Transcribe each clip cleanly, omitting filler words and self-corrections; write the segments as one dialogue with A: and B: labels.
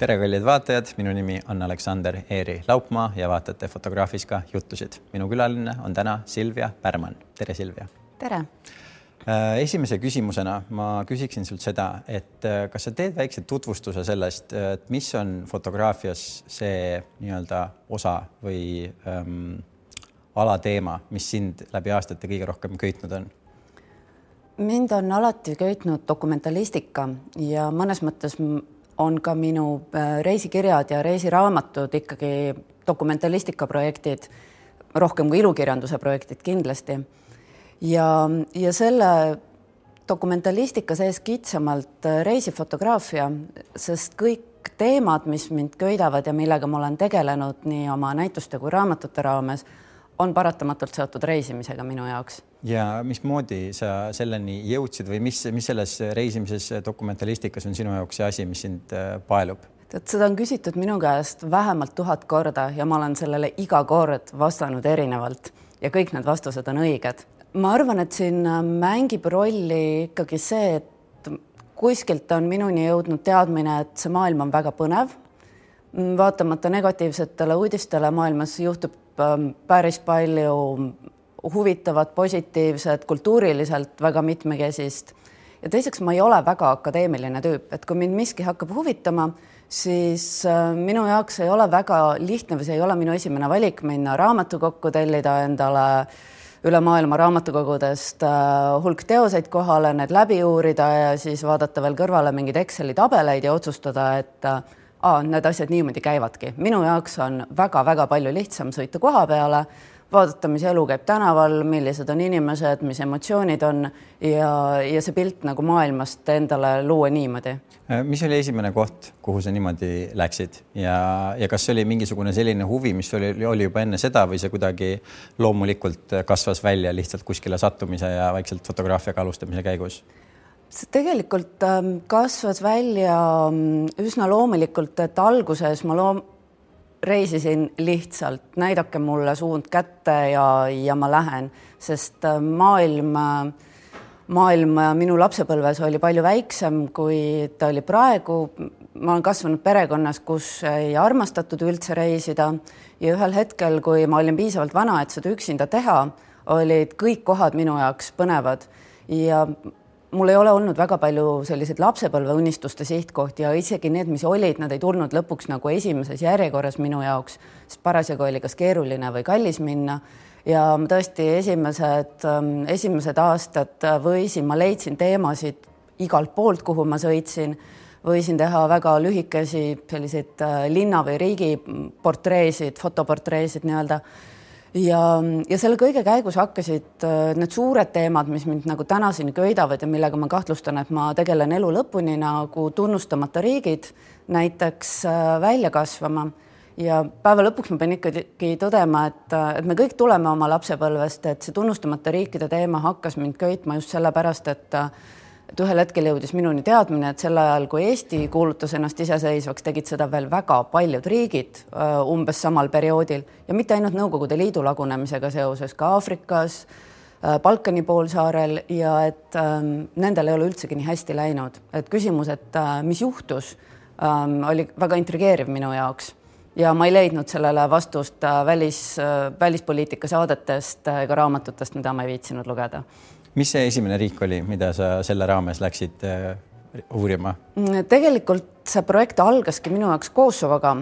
A: Tere kallid vaatajad, minu nimi on Aleksander Eeri Laupmaa ja vaatate Fotograafiska juttusid. Minu külaline on täna Silvia Pärman. Tere Silvia.
B: Tere.
A: Esimese küsimusena ma küsiksin sult seda, et kas sa teed väikse tutvustuse sellest, et mis on fotograafias see nii-öelda osa või alateema, mis sind läbi aastate kõige rohkem köitnud on?
B: Mind on alati köitnud dokumentalistika ja mõnes mõttes on ka minu reisikirjad ja reisiraamatud ikkagi dokumentalistika projektid, rohkem kui ilukirjanduse projektid kindlasti. Ja selle dokumentalistika sees kitsamalt reisifotograafia, sest kõik teemad, mis mind köidavad ja millega ma olen tegelenud nii oma näituste kui raamatute raames, on paratamatult seotud reisimisega minu jaoks.
A: Ja mismoodi sa selleni jõudsid või mis selles reisimises dokumentalistikas on sinu jaoks see asi, mis sind paelub?
B: Seda on küsitud minu käest vähemalt 1000 korda ja ma olen sellele iga kord vastanud erinevalt ja kõik need vastused on õiged. Ma arvan, et siin mängib rolli ikkagi see, et kuskilt on minuni jõudnud teadmine, et see maailm on väga põnev. Vaatamata negatiivsetele uudistele maailmas juhtub päris palju huvitavat, positiivset, kultuuriliselt väga mitmekesist. Ja teiseks ma ei ole väga akadeemiline tüüp, et kui mind miski hakkab huvitama, siis minu jaoks ei ole väga lihtne või see ei ole minu esimene valik minna raamatukokku, tellida endale üle maailma raamatukogudest hulk teoseid kohale, need läbi uurida ja siis vaadata veel kõrvale mingid Exceli tabeleid ja otsustada, et need asjad niimoodi käivadki. Minu jaoks on väga-väga palju lihtsam sõita koha peale, vaadata, mis elu käib tänaval, millised on inimesed, mis emotsioonid on ja see pilt nagu maailmast endale luua niimoodi.
A: Mis oli esimene koht, kuhu sa niimoodi läksid ja kas oli mingisugune selline huvi, mis oli juba enne seda või see kuidagi loomulikult kasvas välja lihtsalt kuskile sattumise ja vaikselt fotograafiaga alustamise käigus? See tegelikult kasvas välja üsna loomulikult, et alguses ma reisisin lihtsalt, näidake mulle suund kätte ja ma lähen, sest maailm minu lapsepõlves oli palju väiksem, kui ta oli praegu. Ma olen kasvanud perekonnas, kus ei armastatud üldse reisida ja ühel hetkel, kui ma olin piisavalt vana, et seda üksinda teha, olid kõik kohad minu jaoks põnevad ja mul ei ole olnud väga palju selliseid lapsepõlve unistuste sihtkohti ja isegi need, mis olid, nad ei tulnud lõpuks nagu esimeses järjekorras minu jaoks, sest parasjagu oli kas keeruline või kallis minna. Ja tõesti esimesed aastad ma leidsin teemasid igalt poolt, kuhu ma sõitsin, võisin teha väga lühikesi selliseid linna või riigi portreesid, fotoportreesid nii-öelda. Ja selle kõige käigus hakkasid need suured teemad, mis mind nagu tänaseni köidavad ja millega ma kahtlustan, et ma tegelen elu lõpuni nagu tunnustamata riigid näiteks välja kasvama. Ja päeva lõpuks ma pean ikkagi tõdema, et me kõik tuleme oma lapsepõlvest, et see tunnustamata riikide teema hakkas mind köitma just sellepärast, et ühel hetkel jõudis minuni teadmine, et sel ajal, kui Eesti kuulutas ennast iseseisvaks, tegid seda veel väga paljud riigid umbes samal perioodil ja mitte ainult Nõukogude Liidu lagunemisega seoses, ka Aafrikas, Balkani poolsaarel ja et nendel ei ole üldsegi nii hästi läinud. Et küsimus, et mis juhtus, oli väga intrigeeriv minu jaoks ja ma ei leidnud sellele vastust välispoliitika saadetest ega raamatutest, mida ma ei viitsinud lugeda. Mis see esimene riik oli, mida sa selle raames läksid uurima?
B: Tegelikult see projekt algaski minu jaoks Kosovoga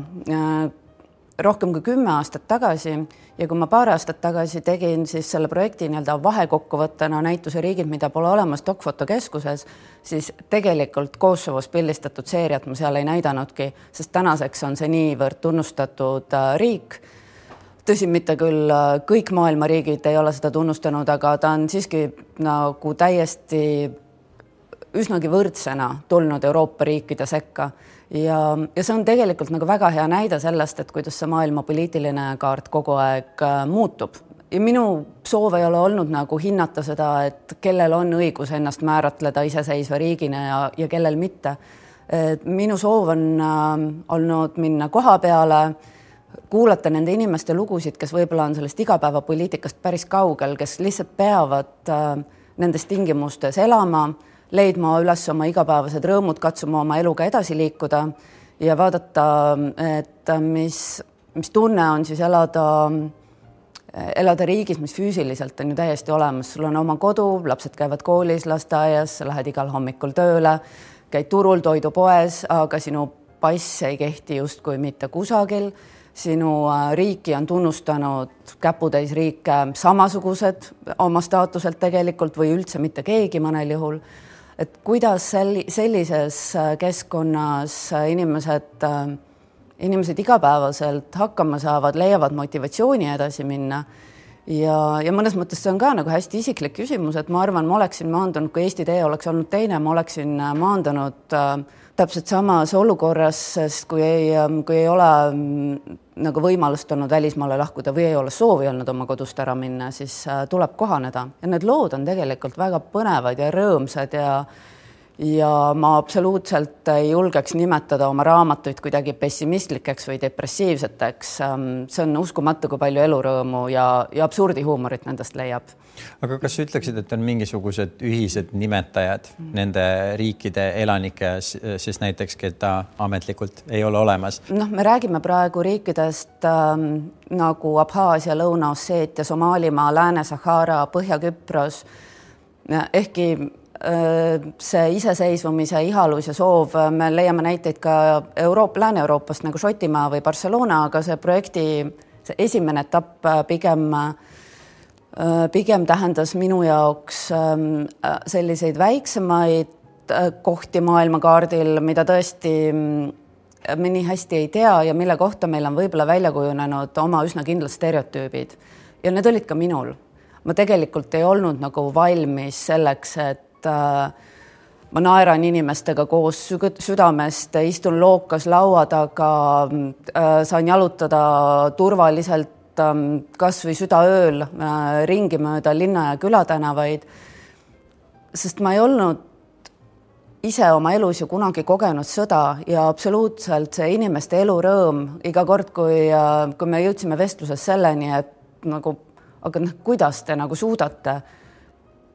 B: rohkem kui 10 aastat tagasi ja kui ma paar aastat tagasi tegin siis selle projekti nii-öelda vahekokkuvõttena näituse riigid, mida pole olemas Dokfotokeskuses, siis tegelikult Kosovos pildistatud seeriat ma seal ei näidanudki, sest tänaseks on see niivõrd tunnustatud riik. Tõsi, mitte küll kõik maailma riigid ei ole seda tunnustanud, aga ta on siiski nagu täiesti üsnagi võrdsena tulnud Euroopa riikide sekka. Ja see on tegelikult nagu väga hea näide sellest, et kuidas see maailma poliitiline kaart kogu aeg muutub. Ja minu soov ei ole olnud nagu hinnata seda, et kellel on õigus ennast määratleda iseseisva riigina ja kellel mitte. Minu soov on olnud minna koha peale, kuulata nende inimeste lugusid, kes võib-olla on sellest igapäevapoliitikast päris kaugel, kes lihtsalt peavad nendes tingimustes elama, leidma üles oma igapäevased rõõmud, katsuma oma eluga edasi liikuda ja vaadata, et mis tunne on siis elada riigis, mis füüsiliselt on ju täiesti olemas. Sul on oma kodu, lapsed käivad koolis, lasteaias, sa lähed igal hommikul tööle, käid turul, toidupoes, aga sinu pass ei kehti justkui mitte kusagil. Sinu riiki on tunnustanud käputäis riike samasugused oma staatuselt tegelikult või üldse mitte keegi mõnel juhul. Et kuidas sellises keskkonnas inimesed igapäevaselt hakkama saavad, leiavad motivatsiooni edasi minna. Ja mõnes mõttes see on ka nagu hästi isiklik küsimus, et ma arvan, ma oleksin maandunud, kui Eesti tee oleks olnud teine, ma oleksin maandunud täpselt samas olukorras, sest kui ei ole nagu võimalust olnud välismaale lahkuda või ei ole soovi olnud oma kodust ära minna, siis tuleb kohaneda. Ja need lood on tegelikult väga põnevad ja rõõmsad ja ma absoluutselt ei julgeks nimetada oma raamatuid kuidagi pessimistlikeks või depressiivseteks. See on uskumatu, kui palju elurõõmu ja absurdihuumorit nendest leiab.
A: Aga kas sa ütleksid, et on mingisugused ühised nimetajad nende riikide elanike, siis näiteks, keda ametlikult ei ole olemas?
B: Me räägime praegu riikidest nagu Abhaasia, Lõuna-Osseetia, Somaalimaa, Lääne-Sahara, Põhja-Küpros, ehkki see iseseisvumise ihalus ja soov, me leiame näiteid ka Lääne-Euroopast nagu Šotimaa või Barcelona, aga see projekti see esimene etapp pigem tähendas minu jaoks selliseid väiksemaid kohti maailmakaardil, mida tõesti me nii hästi ei tea ja mille kohta meil on võib-olla välja kujunenud oma üsna kindlad stereotüübid. Ja need olid ka minul. Ma tegelikult ei olnud nagu valmis selleks, et ma naeran inimestega koos südamest, istun lookas laua taga, saan jalutada turvaliselt kas või südaööl ringi mööda linna ja külatänavaid, sest ma ei olnud ise oma elus ju kunagi kogenud sõda ja absoluutselt see inimeste elurõõm iga kord, kui me jõudsime vestluses selleni, et nagu, aga kuidas te nagu suudate,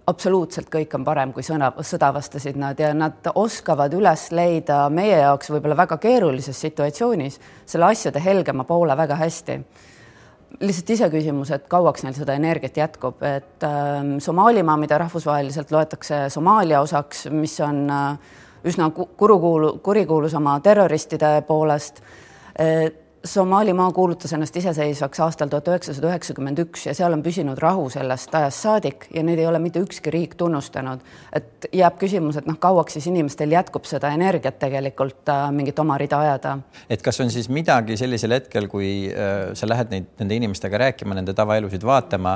B: absoluutselt kõik on parem, kui sõda vastasid nad ja nad oskavad üles leida meie jaoks võib-olla väga keerulises situatsioonis selle asjade helgema poole väga hästi. Lihtsalt ise küsimus, et kauaks neil seda energiat jätkub, et Somaalimaa, mida rahvusvaheliselt loetakse Somaalia osaks, mis on üsna kurikuulus oma terroristide poolest, Somaalimaa kuulutas ennast iseseisvaks aastal 1991 ja seal on püsinud rahu sellest ajast saadik ja neid ei ole mitte ükski riik tunnustanud. Et jääb küsimus, et kauaks siis inimestel jätkub seda energiat tegelikult mingit oma rida ajada.
A: Et kas on siis midagi sellisel hetkel, kui sa lähed nende inimestega rääkima, nende tavaelusid vaatama,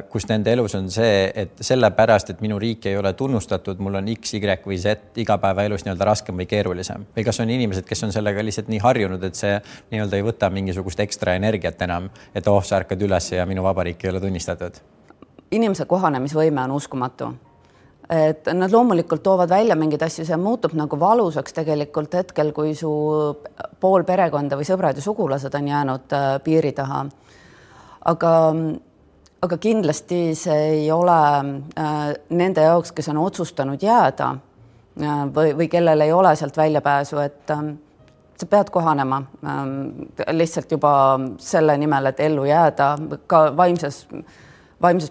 A: kus nende elus on see, et sellepärast, et minu riik ei ole tunnustatud, mul on X, Y või Z igapäevaelus nii-öelda raskem või keerulisem. Või kas on inimesed, kes on sellega lihtsalt nii harjunud, et see ei võta mingisugust ekstra energiat enam, et sa ärkad üles ja minu vabariik ei ole tunnistatud?
B: Inimese kohanemisvõime on uskumatu. Et nad loomulikult toovad välja mingid asju, see muutub nagu valusaks tegelikult hetkel, kui su pool perekonda või sõbrad ja sugulased on jäänud piiri taha. Aga kindlasti see ei ole nende jaoks, kes on otsustanud jääda või kellel ei ole sealt väljapääsu, et sa pead kohanema lihtsalt juba selle nimel, et ellu jääda, ka vaimses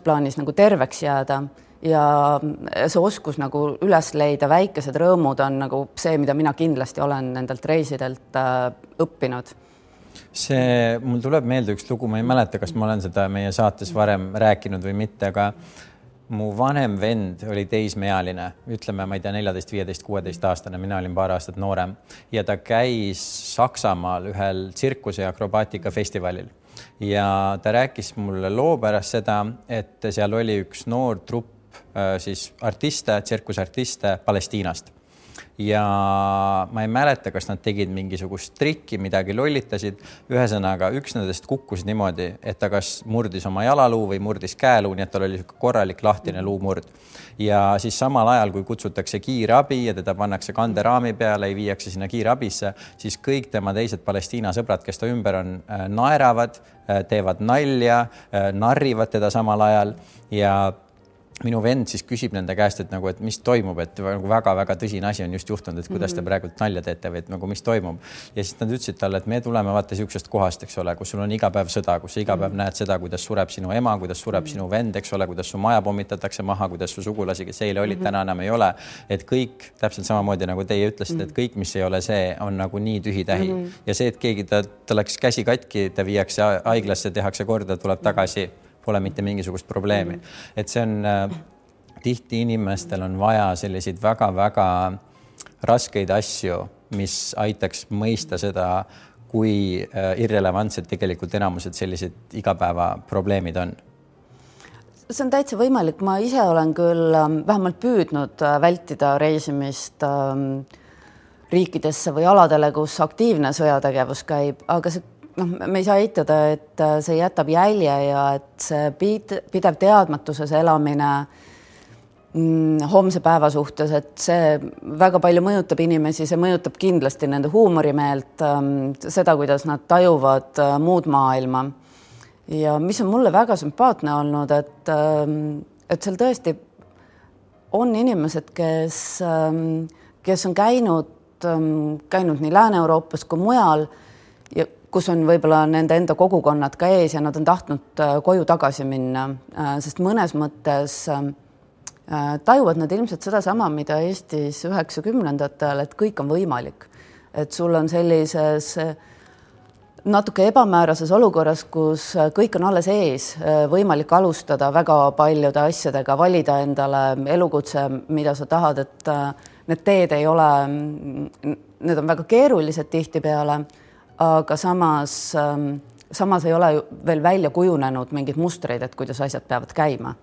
B: plaanis nagu terveks jääda ja see oskus nagu üles leida väikesed rõõmud on nagu see, mida mina kindlasti olen nendelt reisidelt õppinud.
A: Mul tuleb meelde üks lugu, ma ei mäleta, kas ma olen seda meie saates varem rääkinud või mitte, aga mu vanem vend oli teismeealine, ütleme, ma ei tea, 14, 15, 16 aastane, mina olin paar aastat noorem ja ta käis Saksamaal ühel tsirkuse ja akrobaatika festivalil ja ta rääkis mulle loo pärast seda, et seal oli üks noor trupp siis artiste, tsirkusartiste Palestiinast. Ja ma ei mäleta, kas nad tegid mingisugust trikki, midagi lollitasid. Ühesõnaga, üks nendest kukkus niimoodi, et ta kas murdis oma jalaluu või murdis käeluu, nii et tal oli korralik lahtine luumurd. Ja siis samal ajal, kui kutsutakse kiirabi ja teda pannakse kanderaami peale ja viiakse sinna kiirabisse, siis kõik tema teised Palestiina sõbrad, kes ta ümber on, naeravad, teevad nalja, narrivad teda samal ajal ja minu vend siis küsib nende käest, et nagu, et mis toimub, et nagu väga-väga tõsine asi on just juhtunud, et kuidas te praegult nalja teete või et nagu mis toimub. Ja siis nad ütlesid talle, et me tuleme vaata siuksest kohast, eks ole, kus sul on iga päev sõda, kus sa iga päev näed seda, kuidas sureb sinu ema, kuidas sureb sinu vend, eks ole, kuidas su maja pommitatakse maha, kuidas su sugulasi, kes eile olid, täna enam ei ole. Et kõik täpselt samamoodi nagu teie ütlesite, et kõik, mis ei ole see, on nagu nii tühi-tähi. Ja see, et keegi ta läks käsi katki, ta viiakse haiglasse, tehakse korda, tuleb tagasi, pole mitte mingisugust probleemi. Et see on tihti inimestel on vaja selliseid väga-väga raskeid asju, mis aitaks mõista seda, kui irrelevantsed tegelikult enamused sellised igapäeva probleemid on.
B: See on täitsa võimalik. Ma ise olen küll vähemalt püüdnud vältida reisimist riikidesse või aladele, kus aktiivne sõjategevus käib, aga see me ei saa eitada, et see jätab jälje ja et see pidev teadmatuses elamine homse päeva suhtes, et see väga palju mõjutab inimesi, see mõjutab kindlasti nende huumorimeelt, seda, kuidas nad tajuvad muud maailma. Ja mis on mulle väga sümpaatne olnud, et seal tõesti on inimesed, kes on käinud nii Lääne-Euroopas kui mujal ja kus on võib-olla nende enda kogukonnad ka ees ja nad on tahtnud koju tagasi minna, sest mõnes mõttes tajuvad nad ilmselt seda sama, mida Eestis 90-ndatel, et kõik on võimalik. Et sul on sellises natuke ebamäärases olukorras, kus kõik on alles ees, võimalik alustada väga paljude asjadega, valida endale elukutse, mida sa tahad, et need teed ei ole, need on väga keerulised tihtipeale, aga samas ei ole veel välja kujunenud mingid mustreid, et kuidas asjad peavad käima.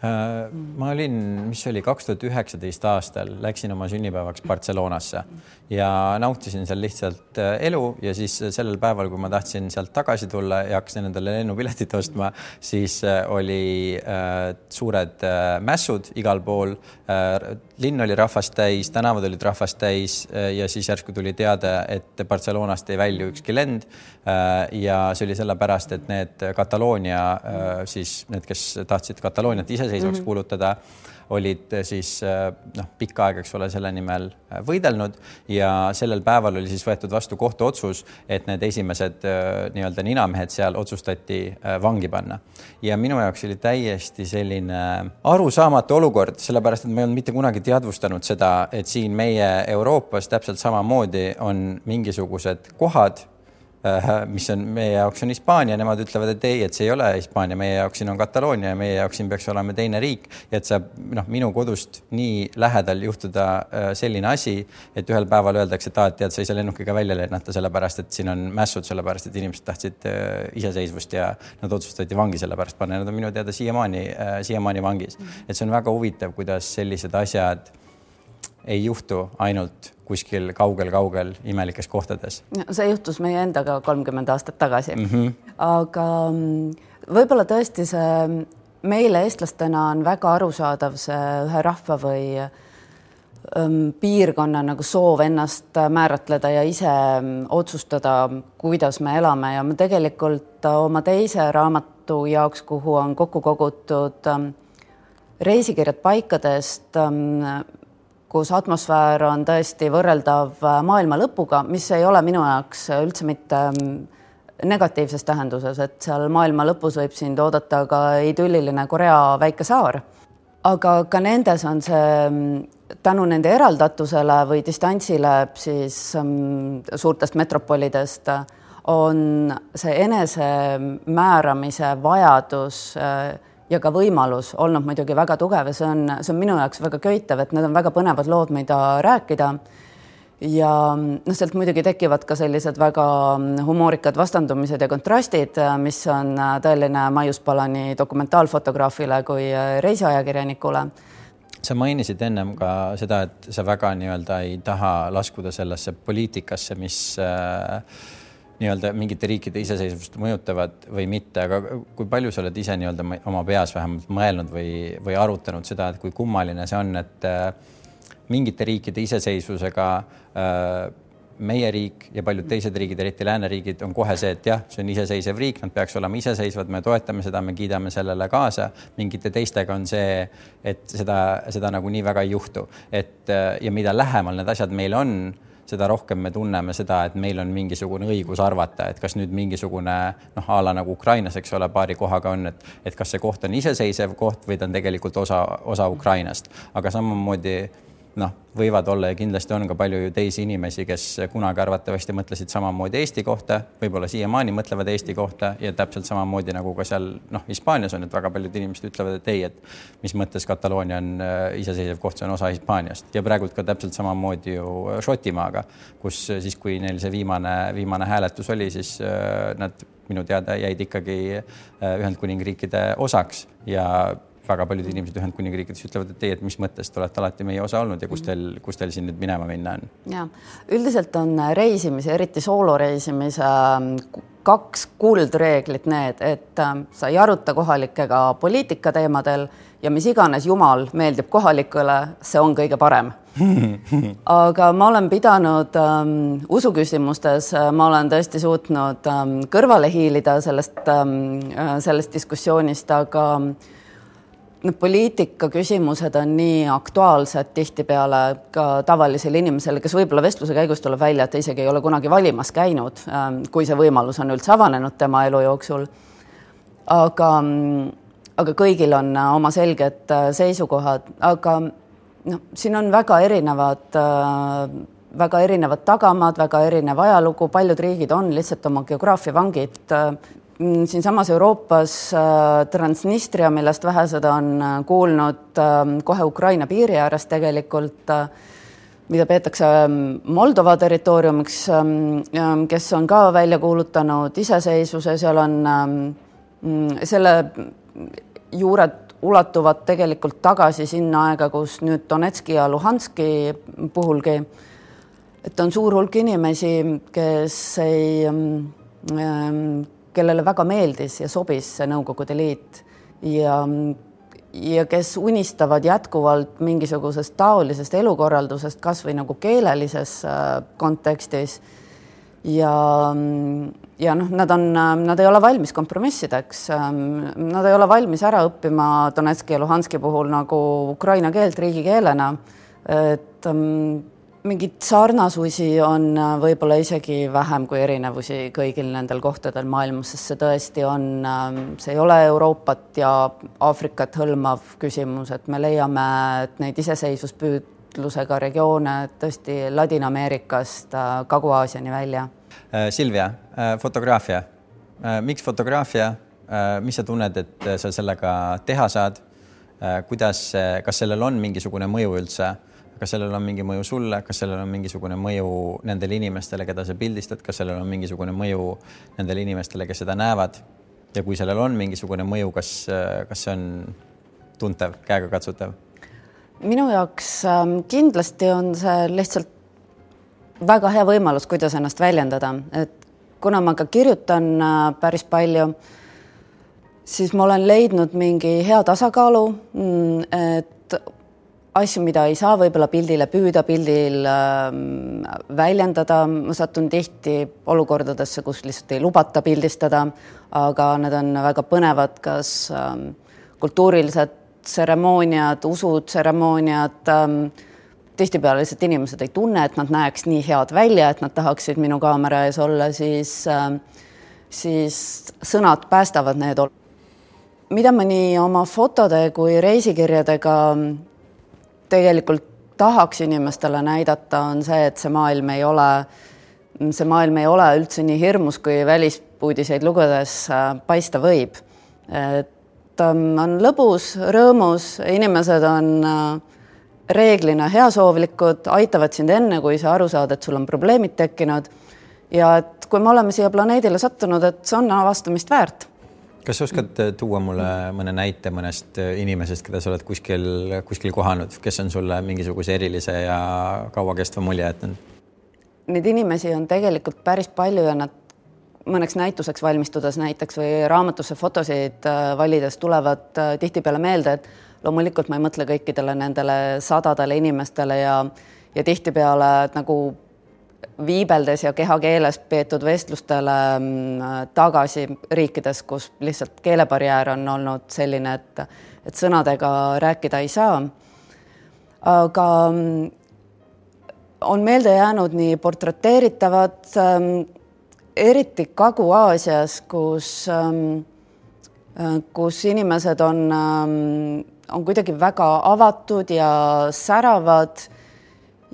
A: Ma olin, mis oli 2019 aastal, läksin oma sünnipäevaks Barcelonasse ja nautisin seal lihtsalt elu ja siis sellel päeval, kui ma tahtsin sealt tagasi tulla ja hakkasin endale lennupiletit ostma, siis oli suured mässud igal pool. Linn oli rahvast täis, tänavad olid rahvast täis ja siis järsku tuli teade, et Barcelonast ei välju ükski lend ja see oli sellepärast, et need Kataloonia, siis need, kes tahtsid Katalooniat iseseisvaks kuulutada, olid siis pikka aega, eks ole, selle nimel võidelnud ja sellel päeval oli siis võetud vastu kohtuotsus, et need esimesed nii-öelda ninamehed seal otsustati vangi panna. Ja minu jaoks oli täiesti selline arusaamatu olukord, sellepärast, et ma ei olnud mitte kunagi teadvustanud seda, et siin meie Euroopas täpselt samamoodi on mingisugused kohad, mis on meie jaoks on Hispaania, nemad ütlevad, et ei, et see ei ole Hispaania, meie jaoks siin on Kataloonia ja meie jaoks siin peaks olema teine riik ja et saab minu kodust nii lähedal juhtuda selline asi, et ühel päeval öeldakse, et tead, sa ei saa lennukiga välja lennata sellepärast, et siin on mässud sellepärast, et inimesed tahtsid iseseisvust ja nad otsustati vangi sellepärast panna ja nad on minu teada siiamaani vangis. Et see on väga huvitav, kuidas sellised asjad ei juhtu ainult kuskil kaugel imelikes kohtades.
B: See juhtus meie endaga 30 aastat tagasi. Aga võib-olla tõesti see meile eestlastena on väga arusaadav see ühe rahva või piirkonna nagu soov ennast määratleda ja ise otsustada, kuidas me elame ja me tegelikult oma teise raamatu jaoks, kuhu on kokku kogutud reisikirjad paikadest, kus atmosfäär on tõesti võrreldav maailma lõpuga, mis ei ole minu jaoks üldse mitte negatiivses tähenduses, et seal maailma lõpus võib sind oodata ka idülliline Korea väike saar. Aga ka nendes on see tänu nende eraldatusele või distantsile siis suurtest metropolidest on see enese määramise vajadus ja ka võimalus olnud muidugi väga tugev ja see on minu jaoks väga köitev, et need on väga põnevad lood, mida rääkida ja sealt muidugi tekivad ka sellised väga humoorikad vastandumised ja kontrastid, mis on tõeline maiuspala nii dokumentaalfotograafile kui reisiajakirjanikule.
A: Sa mainisid ennem ka seda, et sa väga nii-öelda ei taha laskuda sellesse poliitikasse, mis nii-öelda mingite riikide iseseisvust mõjutavad või mitte, aga kui palju sa oled ise nii-öelda oma peas vähemalt mõelnud või arutanud seda, et kui kummaline see on, et mingite riikide iseseisvusega meie riik ja paljud teised riigid, eriti lääneriigid, on kohe see, et jah, see on iseseisev riik, nad peaks olema iseseisvad, me toetame seda, me kiidame sellele kaasa. Mingite teistega on see, et seda nagu nii väga ei juhtu. Ja mida lähemal need asjad meil on, seda rohkem me tunneme seda, et meil on mingisugune õigus arvata, et kas nüüd mingisugune ala nagu Ukrainas, eks ole, paari kohaga on, et kas see koht on iseseisev koht või ta on tegelikult osa Ukrainast. Aga samamoodi võivad olla ja kindlasti on ka palju ju teisi inimesi, kes kunagi arvatavasti mõtlesid samamoodi Eesti kohta, võib-olla siiamaani mõtlevad Eesti kohta ja täpselt samamoodi nagu ka seal Hispaanias on, et väga paljud inimesed ütlevad, et ei, et mis mõttes Kataloonia on iseseisev koht, see on osa Hispaaniast ja praegult ka täpselt samamoodi ju Šotimaaga, kus siis, kui neil see viimane hääletus oli, siis nad minu teada jäid ikkagi Ühendkuningriikide osaks ja väga paljud inimesed Ühendkuningriikides ütlevad, et teie, et mis mõttes te olete alati meie osa olnud ja kus teil siin nüüd minema minna on?
B: Ja, üldiselt on reisimise, eriti sooloreisimise 2 kuldreeglit need, et sa ei aruta kohalikega poliitika teemadel ja mis iganes jumal meeldib kohalikule, see on kõige parem. Aga ma olen pidanud usuküsimustes, ma olen tõesti suutnud kõrvale hiilida sellest diskussioonist, aga poliitika küsimused on nii aktuaalsed tihtipeale ka tavalisele inimesele, kes võib-olla vestluse käigus tuleb välja, et ta isegi ei ole kunagi valimas käinud, kui see võimalus on üldse avanenud tema elu jooksul. Aga kõigil on oma selged seisukohad, aga siin on väga erinevad tagamaad, väga erinev ajalugu, paljud riigid on lihtsalt oma geograafia vangid. Siinsamas Euroopas Transnistria, millest vähesed on kuulnud kohe Ukraina piiri ääres tegelikult, mida peetakse Moldova territooriumiks, kes on ka välja kuulutanud iseseisvuse, seal on selle juured ulatuvad tegelikult tagasi sinna aega, kus nüüd Donetski ja Luhanski puhulgi, et on suur hulk inimesi, kellele väga meeldis ja sobis see Nõukogude Liit ja kes unistavad jätkuvalt mingisugusest taolisest elukorraldusest, kas või nagu keelelises kontekstis. Ja nad ei ole valmis kompromissideks. Nad ei ole valmis ära õppima Donetski ja Luhanski puhul nagu ukraina keelt riigikeelena. Et mingid sarnasusi on võib-olla isegi vähem kui erinevusi kõigil nendel kohtadel maailmas, sest see tõesti on, see ei ole Euroopat ja Aafrikat hõlmav küsimus, et me leiame, et neid iseseisvuspüüdlusega regioone tõesti Ladina-Ameerikast Kagu-Aasiani välja.
A: Silvia, fotograafia. Miks fotograafia? Mis sa tunned, et sa sellega teha saad? Kuidas, kas sellel on mingisugune mõju üldse? Kas sellel on mingi mõju sulle, kas sellel on mingisugune mõju nendele inimestele, keda sa pildistad, kas sellel on mingisugune mõju nendele inimestele, kes seda näevad ja kui sellel on mingisugune mõju, kas see on tuntav, käega katsutav?
B: Minu jaoks kindlasti on see lihtsalt väga hea võimalus, kuidas ennast väljendada, et kuna ma ka kirjutan päris palju, siis ma olen leidnud mingi hea tasakaalu, et asju, mida ei saa võib-olla pildile püüda, pildil väljendada. Ma satun tihti olukordadesse, kus lihtsalt ei lubata pildistada, aga need on väga põnevad, kas kultuurilised tseremooniad, usutseremooniad. Tihtipeale lihtsalt inimesed ei tunne, et nad näeks nii head välja, et nad tahaksid minu kaamera ees olla, siis sõnad päästavad need. Mida ma nii oma fotode kui reisikirjadega tegelikult tahaks inimestele näidata, on see, et see maailm ei ole üldse nii hirmus, kui välispuudiseid lugedes paista võib. Et on lõbus, rõõmus, inimesed on reeglina heasoovlikud, aitavad sind enne, kui sa aru saad, et sul on probleemid tekkinud ja et kui me oleme siia planeedile sattunud, et see on avastamist väärt.
A: Kas sa oskad tuua mulle mõne näite mõnest inimesest, keda sa oled kuskil kohanud, kes on sulle mingisuguse erilise ja kauakestva mulje jätnud?
B: Neid inimesi on tegelikult päris palju ja nad mõneks näituseks valmistudes näiteks või raamatusse fotosid valides tulevad tihtipeale meelde, et loomulikult ma ei mõtle kõikidele nendele sadadele inimestele ja tihtipeale nagu viibeldes ja kehakeeles peetud vestlustele tagasi riikides, kus lihtsalt keelebarjäär on olnud selline, et sõnadega rääkida ei saa. Aga on meelde jäänud nii portreteeritavad, eriti Kagu-Aasias, kus inimesed on kuidagi väga avatud ja säravad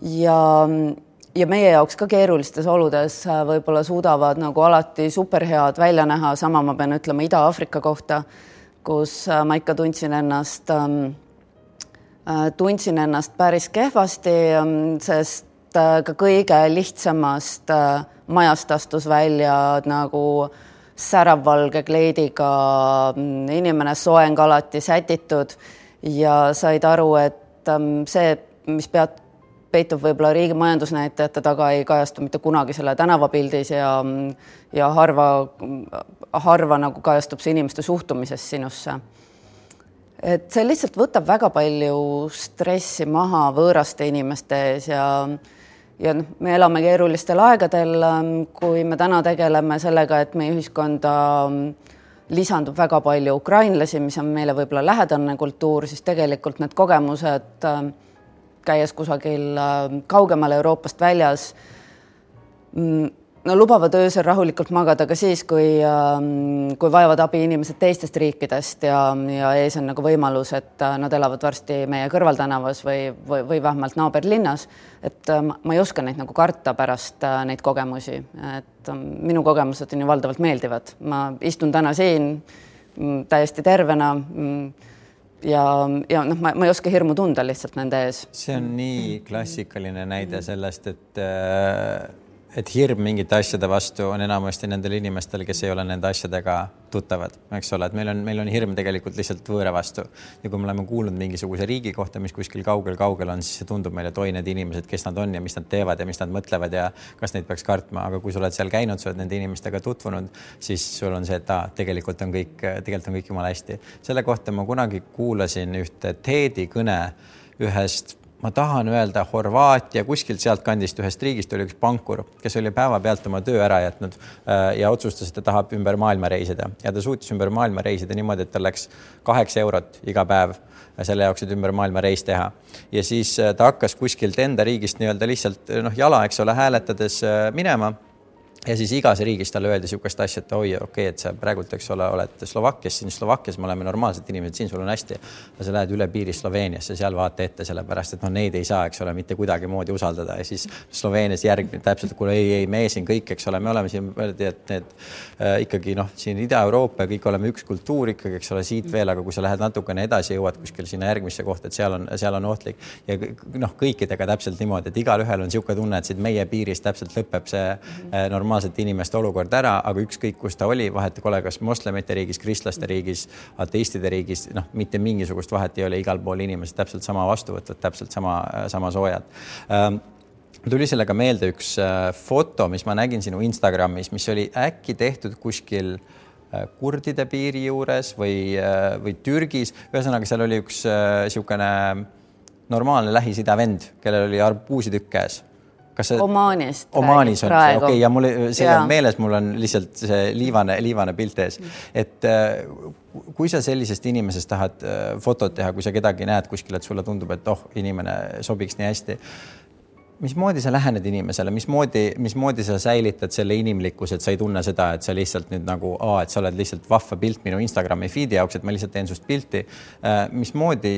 B: ja meie jaoks ka keerulistes oludes võib-olla suudavad nagu alati superhead välja näha. Sama ma pean ütlema Ida-Aafrika kohta, kus ma ikka tundsin ennast päris kehvasti, sest ka kõige lihtsamast majast astus välja nagu säravvalge kleidiga inimene, soeng alati sätitud ja said aru, et see, mis peitub võib-olla riigi majandusnäitajate taga, ei kajastu mitte kunagi selle tänavapildis ja harva nagu kajastub see inimeste suhtumises sinusse. Et see lihtsalt võtab väga palju stressi maha võõraste inimeste ees ja me elame keerulistel aegadel, kui me täna tegeleme sellega, et meie ühiskonda lisandub väga palju ukrainlasi, mis on meile võib-olla lähedane kultuur, siis tegelikult need kogemused käies kusagil kaugemal Euroopast väljas, lubavad öösel rahulikult magada ka siis, kui vajavad abi inimesed teistest riikidest ja ees on nagu võimalus, et nad elavad varsti meie kõrvaltänavas või vähemalt naaberlinnas. Et ma ei oska neid nagu karta pärast neid kogemusi. Et minu kogemused on ju valdavalt meeldivad. Ma istun täna siin täiesti tervena ja ma ei oska hirmu tunda lihtsalt nende ees.
A: See on nii klassikaline näide sellest, et hirm mingite asjade vastu on enamasti nendel inimestel, kes ei ole nende asjadega tuttavad, eks ole, et meil on hirm tegelikult lihtsalt võõra vastu. Ja kui me oleme kuulnud mingisuguse riigi kohta, mis kuskil kaugel on, siis see tundub meile, et need inimesed, kes nad on ja mis nad teevad ja mis nad mõtlevad ja kas neid peaks kartma. Aga kui sa oled seal käinud, sa oled nende inimestega tutvunud, siis sul on see, et tegelikult on kõik jumala hästi. Selle kohta ma kunagi kuulasin ühte TED-i kõne ühest, ma tahan öelda Horvaatia, kuskilt sealt kandist ühest riigist oli üks pankur, kes oli päeva pealt oma töö ära jätnud ja otsustas, et ta tahab ümber maailma reisida. Ja ta suutis ümber maailma reisida niimoodi, et ta läks 8 eurot iga päev selle jaoks, et ümber maailma reis teha. Ja siis ta hakkas kuskilt enda riigist nii-öelda lihtsalt jala, eks ole, hääletades minema. Ja siis igas riigis talle öeldi sihukest asja, et okei, et sa praegult, eks ole, oled Slovakkias, siin Slovakkias me oleme normaalsed inimesed, siin sul on hästi. Ja sa lähed üle piiri Sloveeniasse, seal vaata ette sellepärast, et neid ei saa, eks ole, mitte kuidagi moodi usaldada. Ja siis Sloveenias järgmine täpselt, kui me siin kõik, eks ole, me oleme siin, et need ikkagi siin Ida-Euroopa ja kõik oleme üks kultuur ikkagi, eks ole, siit veel, aga kui sa lähed natukene edasi, jõuad kuskil sinna järgmisse kohta, et seal on ohtlik. Ja kõikidega täpselt niimoodi, et igal ühel on sihuke tunne, et siit meie piirist täpselt lõpeb see normaalsete inimeste olukord ära, aga ükskõik, kus ta oli, vahet kole, kas moslemite riigis, kristlaste riigis, ateistide riigis, mitte mingisugust vahet ei ole, igal pool inimesed täpselt sama vastuvõtvad, täpselt sama soojad. Tuli sellega meelde üks foto, mis ma nägin sinu Instagramis, mis oli äkki tehtud kuskil kurdide piiri juures või Türgis. Ühesõnaga, seal oli üks siukene normaalne Lähis-Ida vend, kellel oli arbuusitükk käes.
B: Omaanist
A: on see, okei, ja mul meeles, mul on lihtsalt see liivane pilt ees. Et kui sa sellisest inimesest tahad fotot teha, kui sa kedagi näed kuskil, et sulle tundub, et inimene sobiks nii hästi, mismoodi sa lähened inimesele, mismoodi sa säilitad selle inimlikkuse, et sa ei tunne seda, et sa lihtsalt nüüd nagu, et sa oled lihtsalt vahva pilt minu Instagrami feedi jaoks, et ma lihtsalt teen sust pilti. Mismoodi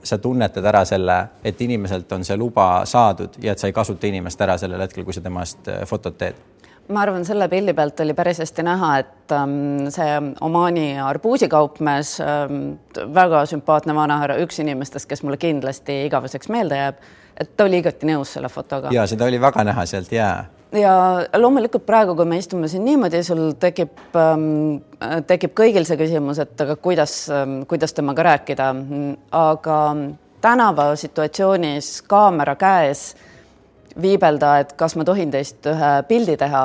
A: sa tunnetad ära selle, et inimeselt on see luba saadud ja et sa ei kasuta inimest ära sellel hetkel, kui sa temast fotot teed?
B: Ma arvan, selle pildi pealt oli päris hästi näha, et see Omaani arbuusikaupmees, väga sümpaatne vanahärra, üks inimestest, kes mulle kindlasti igaveseks meelde jääb, et ta oli igati nõus selle fotoga.
A: Ja seda oli väga näha sealt, jaa.
B: Ja loomulikult praegu, kui me istume siin niimoodi, sul tekib kõigil see küsimus, et aga kuidas temaga rääkida. Aga tänava situatsioonis kaamera käes viibelda, et kas ma tohin teist ühe pildi teha.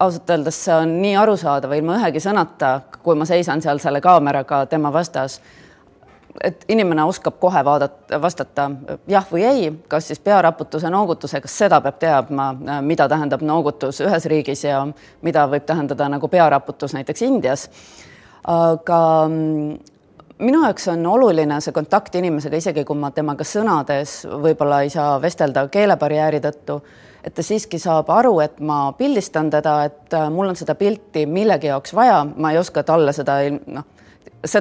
B: Ausalt öeldes see on nii arusaadav ilma ühegi sõnata, kui ma seisan seal selle kaameraga tema vastas. et inimene oskab kohe vastata jah või ei, kas siis pearaputuse, noogutuse, kas seda peab teadma, mida tähendab noogutus ühes riigis ja mida võib tähendada nagu pearaputus näiteks Indias. Aga minu jaoks on oluline see kontakt inimesega, isegi kui ma temaga sõnades võib-olla ei saa vestelda keelebarjääri tõttu, et ta siiski saab aru, et ma pildistan teda, et mul on seda pilti millegi jaoks vaja, ma ei oska talle seda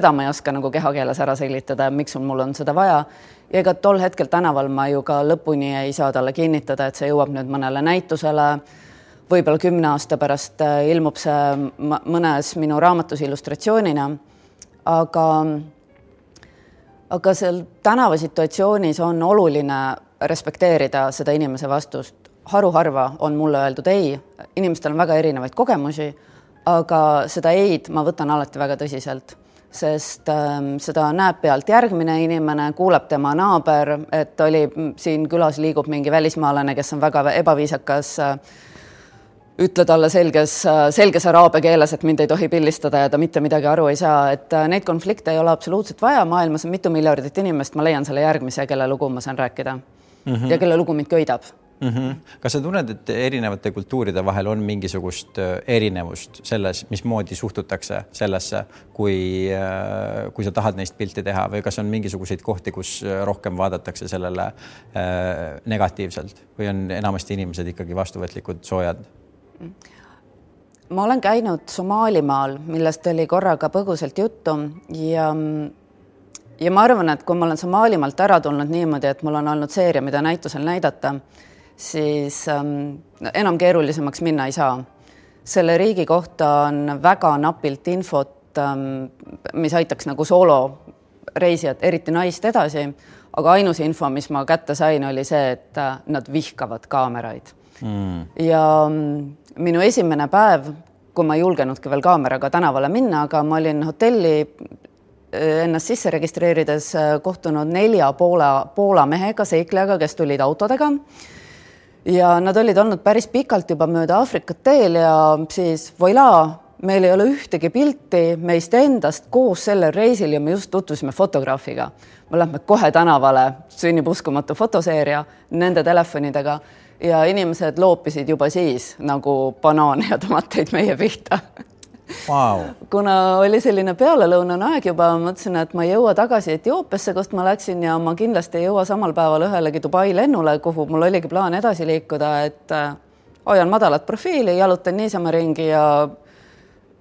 B: ma ei oska nagu kehakeeles ära selgitada, miks mul on seda vaja. Ja ega tol hetkel tänaval ma ju ka lõpuni ei saa talle kinnitada, et see jõuab nüüd mõnele näitusele. Võib-olla 10 aasta pärast ilmub see mõnes minu raamatus illustratsioonina. Aga seal tänavasituatsioonis on oluline respekteerida seda inimese vastust. Haruharva on mulle öeldud ei, inimestel on väga erinevaid kogemusi, aga seda eid ma võtan alati väga tõsiselt, sest seda näeb pealt järgmine inimene, kuuleb tema naaber, et oli siin külas liigub mingi välismaalane, kes on väga ebaviisakas, ütle talle selges araabia keeles, et mind ei tohi pildistada ja ta mitte midagi aru ei saa, et neid konflikte ei ole absoluutselt vaja, maailmas on mitu miljardit inimest, ma leian selle järgmise, kelle lugu ma saan rääkida ja kelle lugu mind köidab.
A: Kas sa tunned, et erinevate kultuuride vahel on mingisugust erinevust selles, mismoodi suhtutakse sellesse, kui sa tahad neist pilti teha või kas on mingisuguseid kohti, kus rohkem vaadatakse sellele negatiivselt või on enamasti inimesed ikkagi vastuvõtlikud, soojad?
B: Ma olen käinud Somaalimaal, millest oli korraga põgusalt juttu ja ma arvan, et kui ma olen Somaalimaalt ära tulnud niimoodi, et mul on olnud seeria, mida näitusel näidata, siis enam keerulisemaks minna ei saa. Selle riigi kohta on väga napilt infot, mis aitaks nagu sooloreisijat, eriti naist edasi, aga ainus info, mis ma kätte sain, oli see, et nad vihkavad kaameraid. Ja minu esimene päev, kui ma ei julgenudki veel kaameraga tänavale minna, aga ma olin hotelli ennast sisse registreerides kohtunud 4 Poola mehega, seiklejaga, kes tulid autodega. Ja nad olid olnud päris pikalt juba mööda Aafrikat teel ja siis voila, meil ei ole ühtegi pilti meist endast koos sellel reisil ja me just tutvusime fotograafiga. Me lähme kohe tänavale, sünnib uskumatu fotoseeria nende telefonidega ja inimesed loopisid juba siis nagu banaane ja tomateid meie pihta.
A: Wow.
B: Kuna oli selline pealelõunane aeg juba, mõtlesin, et ma ei jõua tagasi Etioopiasse, kust ma läksin ja ma kindlasti ei jõua samal päeval ühelegi Dubai lennule, kuhu mul oligi plaan edasi liikuda, et hoian madalat profiili, jalutan niisama ringi ja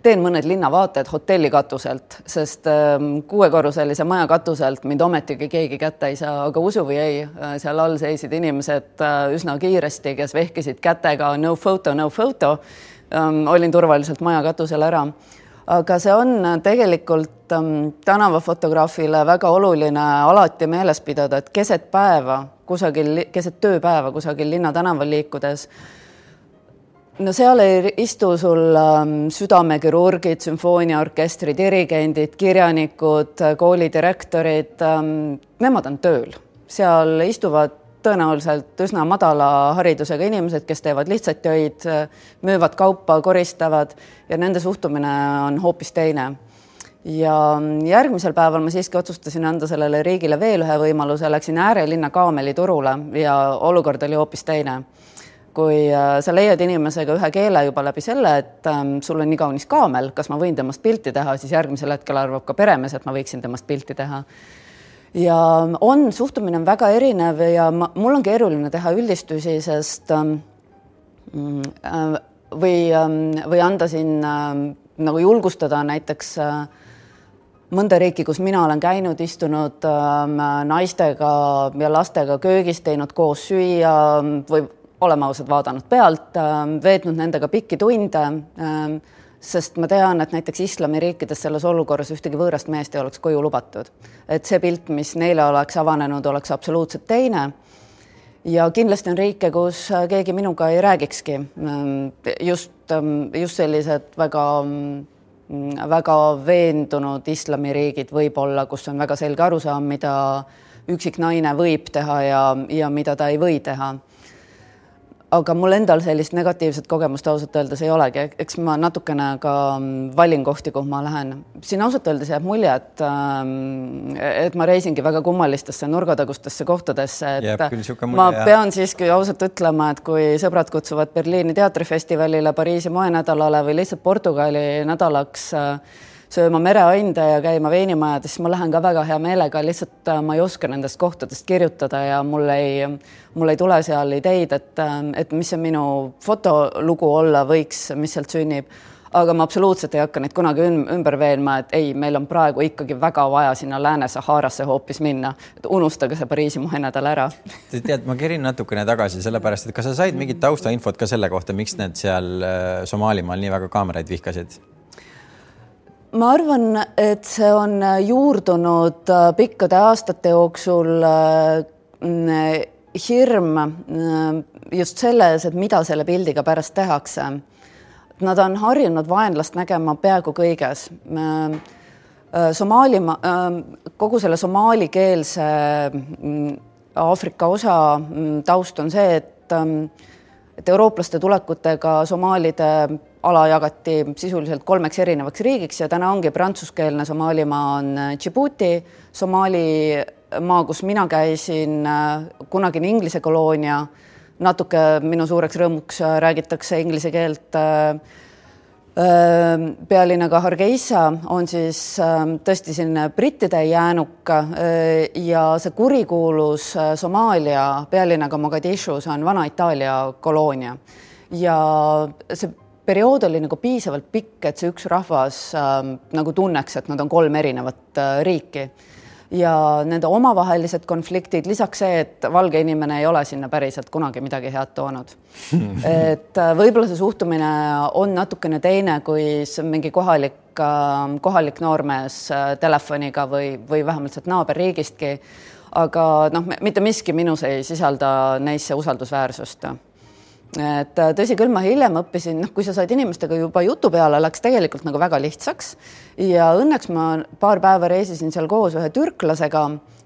B: teen mõned linnavaated hotelli katuselt, sest 6-korruselise maja katuselt mind ometigi keegi kätte ei saa, aga usu või ei, seal all seisid inimesed üsna kiiresti, kes vehkisid kätega no photo. Olin turvaliselt maja katusel ära. Aga see on tegelikult tänavafotograafile väga oluline alati meeles pidada, et keset tööpäeva kusagil linna tänaval liikudes, no seal ei istu sul südamekirurgid, sümfooniaorkestri dirigendid, kirjanikud, koolidirektorid, nemad on tööl. Seal istuvad tõenäoliselt üsna madala haridusega inimesed, kes teevad lihtsalt töid, müüvad kaupa, koristavad ja nende suhtumine on hoopis teine. Ja järgmisel päeval ma siiski otsustasin anda sellele riigile veel ühe võimaluse, läksin äärelinna Kaameliturule ja olukord oli hoopis teine. Kui sa leiad inimesega ühe keele juba läbi selle, et sul on nii kaunis kaamel, kas ma võin temast pilti teha, siis järgmisel hetkel arvab ka peremees, et ma võiksin temast pilti teha. Ja suhtumine on väga erinev ja mul on keeruline teha üldistusi, sest või anda siin nagu julgustada näiteks mõnda riiki, kus mina olen käinud, istunud naistega ja lastega köögis, teinud koos süüa või olema ausad vaadanud pealt, veetnud nendega pikki tunde, sest ma tean, et näiteks islamiriikides selles olukorras ühtegi võõrast meest ei oleks koju lubatud. Et see pilt, mis neile oleks avanenud, oleks absoluutselt teine. Ja kindlasti on riike, kus keegi minuga ei räägikski. Just sellised väga veendunud islamiriigid võib olla, kus on väga selge arusaam, mida üksik naine võib teha ja mida ta ei või teha. aga mul endal sellist negatiivset kogemust ausalt öeldes ei olegi, eks ma natukene ka valin kohti, kuhu ma lähen. Siin ausalt öeldes jääb mulje, et ma reisingi väga kummalistesse nurgatagustesse kohtadesse, et ma pean siiski ausalt ütlema, et kui sõbrad kutsuvad Berliini teatrifestivalile, Pariisi moenädalale või lihtsalt Portugali nädalaks sööma mereande ja käima veinimajades, siis ma lähen ka väga hea meelega, lihtsalt ma ei oska nendest kohtadest kirjutada ja mul ei tule seal ideid, et mis see minu fotolugu olla võiks, mis sealt sünnib. Aga ma absoluutselt ei hakka neid kunagi ümber veenma, et ei, meil on praegu ikkagi väga vaja sinna Lääne-Saharasse hoopis minna. Et unustage see Pariisi moenädal ära.
A: Tead, ma kerin natukene tagasi sellepärast, et kas sa said mingit taustainfot ka selle kohta, miks need seal Somaalimaal nii väga kaameraid vihkasid?
B: Ma arvan, et see on juurdunud pikkade aastate jooksul hirm just selles, et mida selle pildiga pärast tehakse. Nad on harjunud vaenlast nägema peaaegu kõiges. Kogu selle somaalikeelse Aafrika osa taust on see, et eurooplaste tulekutega somaalide ala jagati sisuliselt 3 erinevaks riigiks ja täna ongi prantsuskeelne Somaalimaa on Djibouti, Somaalimaa, kus mina käisin, kunagine Inglise koloonia, natuke minu suureks rõõmuks räägitakse inglise keelt. Pealinnaga Hargeisa on siis tõesti sinna brittide jäänuk ja see kurikuulus Somaalia pealinnaga Mogadishus on vana Itaalia koloonia ja see periood oli nagu piisavalt pikk, et see üks rahvas nagu tunneks, et nad on 3 erinevat riiki ja nende omavahelised konfliktid, lisaks see, et valge inimene ei ole sinna päriselt kunagi midagi head toonud. Et võib-olla see suhtumine on natukene teine, kui mingi kohalik noormees telefoniga või vähemalt sealt naaberriigistki, aga mitte miski minus ei sisalda neisse usaldusväärsust. Et tõsi küll, ma hiljem õppisin, kui sa said inimestega juba jutu peale, läks tegelikult nagu väga lihtsaks ja õnneks ma paar päeva reisisin seal koos ühe türklasega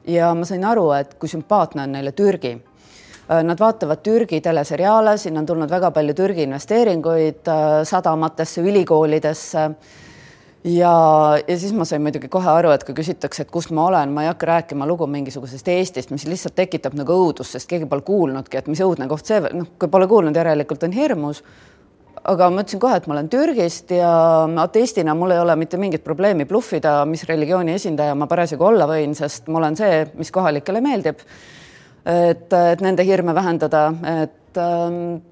B: ja ma sain aru, et kui sümpaatne on neile Türgi. Nad vaatavad Türgi teleseriaale, siin on tulnud väga palju Türgi investeeringuid sadamatesse, ülikoolidesse ja siis ma sain muidugi kohe aru, et kui küsitakse, et kust ma olen, ma ei hakka rääkima lugu mingisugusest Eestist, mis lihtsalt tekitab nagu õudust, sest keegi pole kuulnudki, et mis õudne koht see, kui pole kuulnud, järelikult on hirmus. Aga ma ütlesin kohe, et ma olen Türgist ja ateistina mul ei ole mitte mingit probleemi bluffida, mis religiooni esindaja ma parasjagu olla võin, sest ma olen see, mis kohalikele meeldib, et nende hirme vähendada, et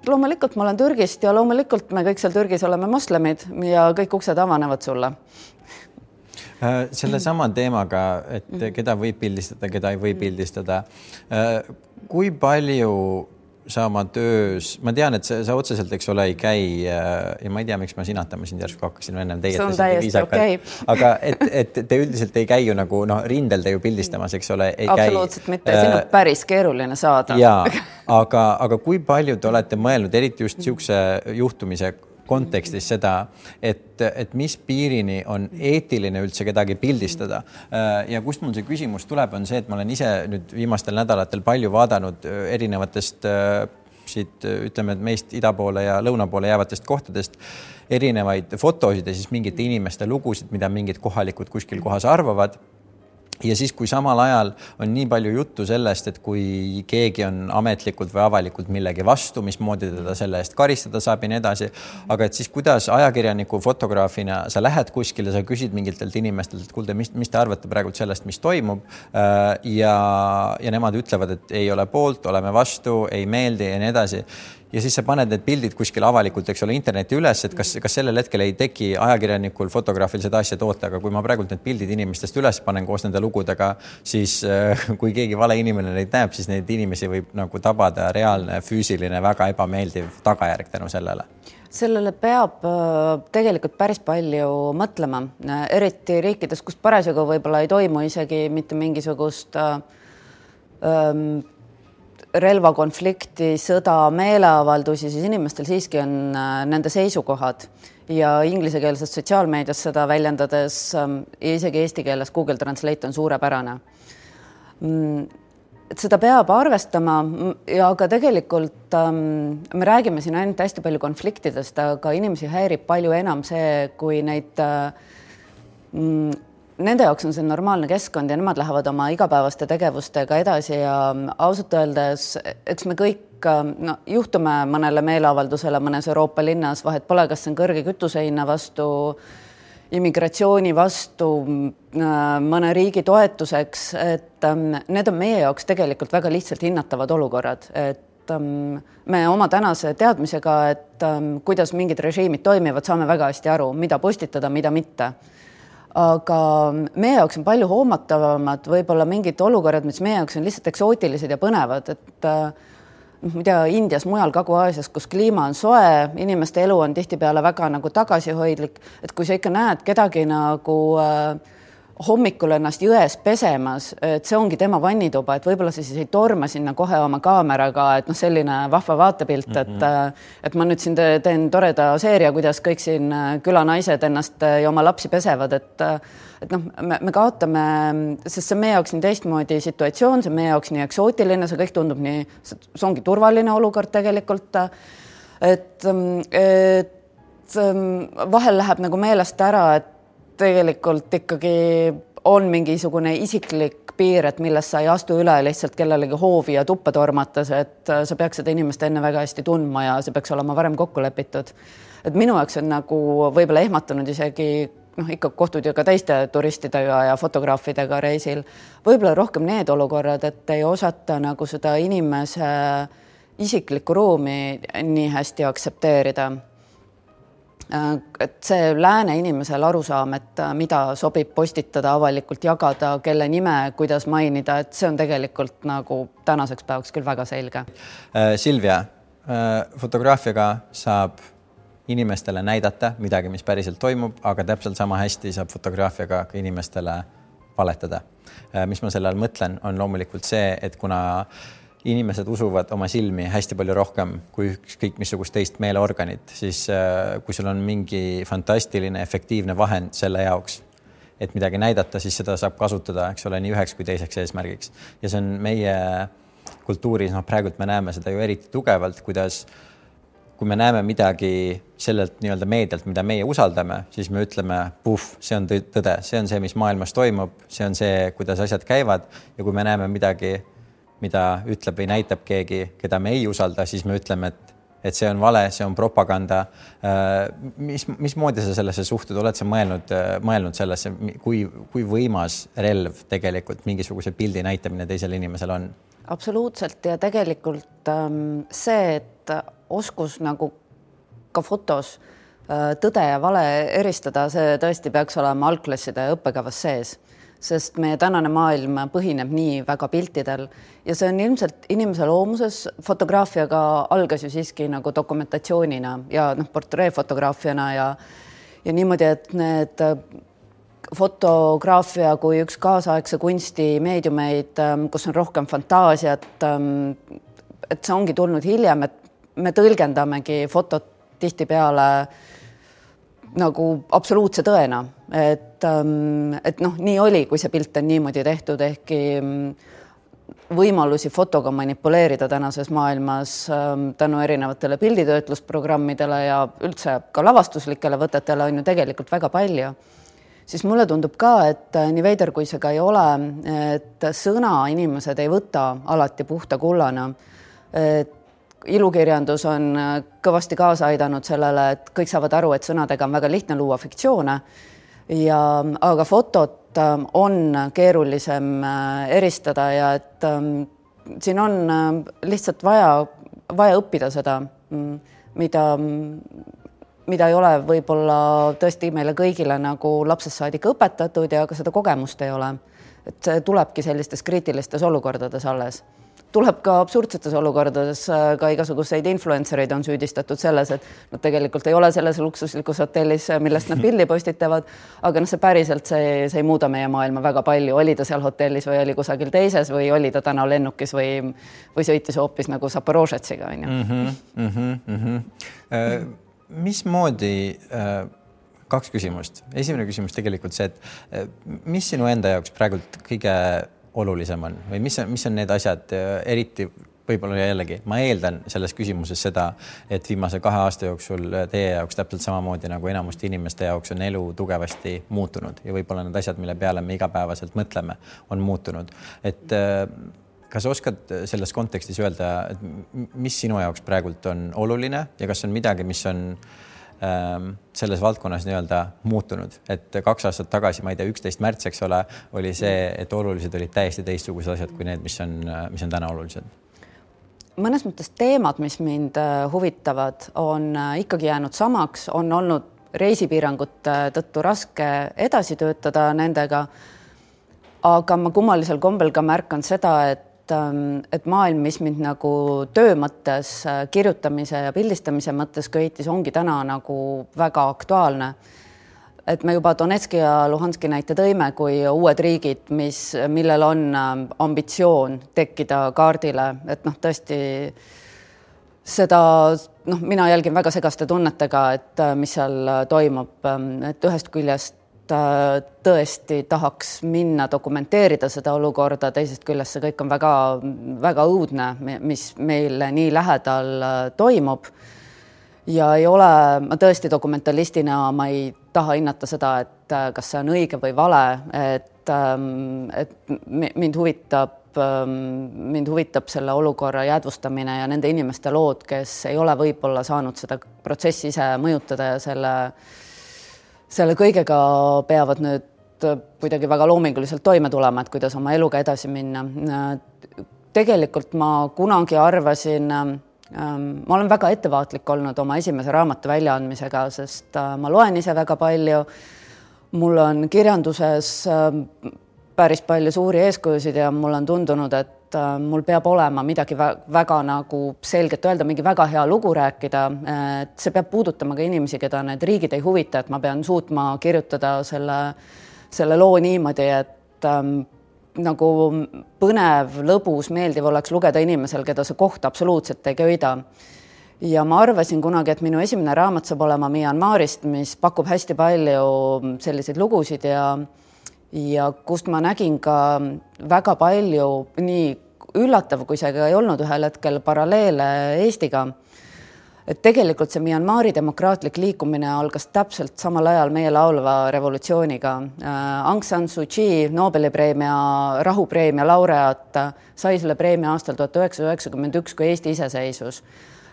B: loomulikult ma olen Türgist ja loomulikult me kõik seal Türgis oleme moslemid ja kõik uksed avanevad sulle.
A: Selle sama teemaga, et keda võib pildistada, keda ei või pildistada. Kui palju sa oma töös, ma tean, et sa otseselt, eks ole, ei käi ja ma ei tea, miks ma sinatama sind järsku hakkasin ennem teie.
B: See on täiesti okei.
A: Aga et te üldiselt ei käi ju nagu rindel te ju pildistamas, eks ole, ei käi.
B: Absoluutselt mitte, siin on päris keeruline saada.
A: Jaa, aga kui palju te olete mõelnud, eriti just siukse juhtumise kontekstis seda, et mis piirini on eetiline üldse kedagi pildistada. Ja kust mul see küsimus tuleb, on see, et ma olen ise nüüd viimastel nädalatel palju vaadanud erinevatest siit, ütleme, et meist ida poole ja lõuna poole jäävatest kohtadest erinevaid fotosid ja siis mingite inimeste lugusid, mida mingid kohalikud kuskil kohas arvavad. Ja siis, kui samal ajal on nii palju juttu sellest, et kui keegi on ametlikult või avalikult millegi vastu, mismoodi teda selle eest karistada saab ja nii edasi, aga et siis kuidas ajakirjaniku fotograafina sa lähed kuskile, sa küsid mingitelt inimestelt, et kuulde, mis te arvate praegu sellest, mis toimub ja nemad ütlevad, et ei ole poolt, oleme vastu, ei meeldi ja nii edasi. Ja siis sa paned need pildid kuskil avalikult, eks ole, interneti üles, et kas sellel hetkel ei teki ajakirjanikul, fotograafil seda asja toota, aga kui ma praegult need pildid inimestest üles panen koos nende lugudega, siis kui keegi vale inimene neid näeb, siis neid inimesi võib nagu tabada reaalne, füüsiline, väga ebameeldiv tagajärg tänu sellele.
B: Sellele peab tegelikult päris palju mõtlema, eriti riikides, kus parasjagu võib-olla ei toimu isegi mitte mingisugust relvakonflikti, sõda, meeleavaldusi, siis inimestel siiski on nende seisukohad ja inglisekeelses sotsiaalmeedias seda väljendades ja isegi eesti keeles Google Translate on suurepärane. et seda peab arvestama ja ka tegelikult me räägime siin ainult hästi palju konfliktidest, aga inimesi häirib palju enam see, kui neid nende jaoks on see normaalne keskkond ja nemad lähevad oma igapäevaste tegevustega edasi ja ausalt öeldes, eks me kõik juhtume mõnele meeleavaldusele mõnes Euroopa linnas, vahet pole, kas see on kõrge kütusehinna vastu, immigratsiooni vastu, mõne riigi toetuseks, et need on meie jaoks tegelikult väga lihtsalt hinnatavad olukorrad, et me oma tänase teadmisega, et kuidas mingid režiimid toimivad, saame väga hästi aru, mida postitada, mida mitte. Aga meie jaoks on palju hoomatavamad võib-olla mingid olukorrad, mis meie jaoks on lihtsalt eksootilised ja põnevad, et mida Indias, mujal Kagu-Aasias, kus kliima on soe, inimeste elu on tihtipeale väga nagu tagasihoidlik, et kui sa ikka näed kedagi nagu hommikul ennast jões pesemas, et see ongi tema vannituba, et võib-olla sa siis ei torma sinna kohe oma kaameraga, et selline vahva vaatepilt, et ma nüüd siin teen toreda seeria, kuidas kõik siin külanaised ennast ja oma lapsi pesevad, et me kaotame, sest see meie jaoks nii teistmoodi situatsioon, see meie jaoks nii eksootiline, see kõik tundub nii, see ongi turvaline olukord tegelikult, et vahel läheb nagu meelest ära, et tegelikult ikkagi on mingisugune isiklik piir, et millest sa ei astu üle lihtsalt kellelegi hoovi ja tuppa tormates, et sa peaks seda inimest enne väga hästi tundma ja see peaks olema varem kokku lepitud. Et minu jaoks on nagu võib-olla ehmatanud isegi ikka kohtud ju ka teiste turistidega ja fotograafidega reisil. Võib-olla rohkem need olukorrad, et ei osata nagu seda inimese isiklikku ruumi nii hästi aktsepteerida. Et see lääne inimesel arusaam, et mida sobib postitada, avalikult jagada, kelle nime, kuidas mainida, et see on tegelikult nagu tänaseks päevaks küll väga selge.
A: Silvia, fotograafiaga saab inimestele näidata midagi, mis päriselt toimub, aga täpselt sama hästi saab fotograafiaga ka inimestele valetada. Mis ma selle all mõtlen, on loomulikult see, et kuna inimesed usuvad oma silmi hästi palju rohkem kui kõik missugust teist meeleorganit, siis kui sul on mingi fantastiline, efektiivne vahend selle jaoks, et midagi näidata, siis seda saab kasutada, eks ole, nii üheks kui teiseks eesmärgiks. Ja see on meie kultuuris, praegult me näeme seda ju eriti tugevalt, kuidas kui me näeme midagi sellelt nii-öelda meedialt, mida meie usaldame, siis me ütleme, see on tõde, see on see, mis maailmas toimub, see on see, kuidas asjad käivad ja kui me näeme midagi, mida ütleb või näitab keegi, keda me ei usalda, siis me ütleme, et see on vale, see on propaganda. Mismoodi sa sellesse suhtud? Oled sa mõelnud sellesse, kui võimas relv tegelikult mingisuguse pildi näitamine teisel inimesel on?
B: Absoluutselt ja tegelikult see, et oskus nagu ka fotos tõde ja vale eristada, see tõesti peaks olema algklasside õppekavas sees, sest meie tänane maailm põhineb nii väga piltidel ja see on ilmselt inimese loomuses. Fotograafiaga algas ju siiski nagu dokumentatsioonina ja portreefotograafiana ja niimoodi, et need fotograafia kui üks kaasaegse kunsti meediumeid, kus on rohkem fantaasiat, et see ongi tulnud hiljem, et me tõlgendamegi fotot tihtipeale nagu absoluutse tõena, et nii oli, kui see pilt on niimoodi tehtud, ehkki võimalusi fotoga manipuleerida tänases maailmas tänu erinevatele pilditöötlusprogrammidele ja üldse ka lavastuslikele võtetele on ju tegelikult väga palju. Siis mulle tundub ka, et nii veider kui see ka ei ole, et sõna inimesed ei võta alati puhta kullana. Ilukirjandus on kõvasti kaasa aidanud sellele, et kõik saavad aru, et sõnadega on väga lihtne luua fiktsioone, aga fotot on keerulisem eristada ja et siin on lihtsalt vaja õppida seda, mida ei ole võib-olla tõesti meile kõigile nagu lapsest saadik õpetatud ja ka seda kogemust ei ole. Et see tulebki sellistes kriitilistes olukordades alles. Tuleb ka absurdsetes olukordades, ka igasuguseid influencereid on süüdistatud selles, et nad tegelikult ei ole selles luksuslikus hotellis, millest nad pildi postitavad, aga see päriselt see ei muuda meie maailma väga palju. Oli ta seal hotellis või oli kusagil teises või oli ta täna lennukis või sõitis hoopis nagu Zaporožetsiga.
A: Mismoodi, kaks küsimust. Esimene küsimus tegelikult see, et mis sinu enda jaoks praegult kõige olulisem on või mis on need asjad, eriti võib-olla jällegi, ma eeldan selles küsimuses seda, et viimase 2 aasta jooksul teie jaoks täpselt samamoodi nagu enamuste inimeste jaoks on elu tugevasti muutunud ja võib-olla need asjad, mille peale me igapäevaselt mõtleme, on muutunud. Et kas oskad selles kontekstis öelda, et mis sinu jaoks praegult on oluline ja kas on midagi, mis on selles valdkonnas nii-öelda muutunud, et 2 aastat tagasi, ma ei tea, 11. märts, eks ole, oli see, et olulised olid täiesti teistsugused asjad kui need, mis on täna olulised.
B: Mõnes mõttes teemad, mis mind huvitavad, on ikkagi jäänud samaks, on olnud reisipiirangute tõttu raske edasi töötada nendega, aga ma kummalisel kombel ka märkan seda, et maailm, mis mind nagu töö mõttes, kirjutamise ja pildistamise mõttes köitis, ongi täna nagu väga aktuaalne. Et me juba Donetski ja Luhanski näite tõime kui uued riigid, millel on ambitsioon tekkida kaardile, et tõesti seda, mina jälgin väga segaste tunnetega, et mis seal toimub, et ühest küljest tõesti tahaks minna dokumenteerida seda olukorda, teisest küljest see kõik on väga, väga õudne, mis meil nii lähedal toimub. Ja ei ole, ma tõesti dokumentalistina, ma ei taha hinnata seda, et kas see on õige või vale, et mind huvitab selle olukorra jäädvustamine ja nende inimeste lood, kes ei ole võib-olla saanud seda protsessi ise mõjutada ja selle kõigega peavad nüüd kuidagi väga loominguliselt toime tulema, et kuidas oma eluga edasi minna. Tegelikult ma kunagi arvasin, ma olen väga ettevaatlik olnud oma esimese raamatu väljaandmisega, sest ma loen ise väga palju. Mul on kirjanduses päris palju suuri eeskujusid ja mul on tundunud, et mul peab olema midagi väga nagu selgelt öelda, mingi väga hea lugu rääkida, et see peab puudutama ka inimesi, keda need riigid ei huvita, et ma pean suutma kirjutada selle loo niimoodi, et nagu põnev, lõbus, meeldiv oleks lugeda inimesel, keda see koht absoluutselt ei köida. Ja ma arvasin kunagi, et minu esimene raamat saab olema Myanmarist, mis pakub hästi palju selliseid lugusid ja kust ma nägin ka väga palju, nii üllatav, kui see ka ei olnud ühel hetkel, paralleele Eestiga. Et tegelikult see Myanmari demokraatlik liikumine algas täpselt samal ajal meie laulva revolutsiooniga. Aung San Suu Kyi, Nobeli rahupreemia laureaat, sai selle preemia aastal 1991, kui Eesti iseseisvus.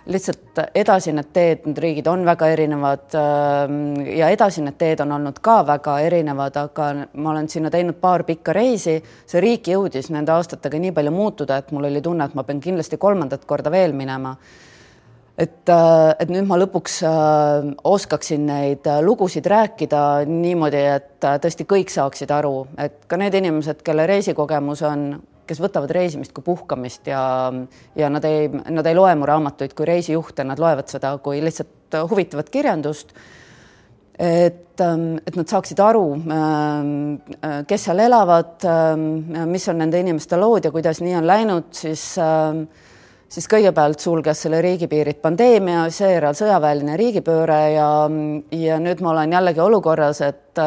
B: Lihtsalt edasi need teed, need riigid on väga erinevad ja edasi need teed on olnud ka väga erinevad, aga ma olen sinna teinud 2 pikka reisi. See riik jõudis nende aastatega nii palju muutuda, et mul oli tunne, et ma pean kindlasti 3. korda veel minema. Et nüüd ma lõpuks oskaksin neid lugusid rääkida niimoodi, et tõesti kõik saaksid aru, et ka need inimesed, kelle reisikogemus on, kes võtavad reisimist kui puhkamist ja nad ei loe mu raamatuid kui reisijuhte, nad loevad seda kui lihtsalt huvitavat kirjandust, et nad saaksid aru, kes seal elavad, mis on nende inimeste lood ja kuidas nii on läinud, siis kõigepealt sulges selle riigipiirid pandeemia, seejärel sõjaväeline riigipööre ja nüüd ma olen jällegi olukorras, et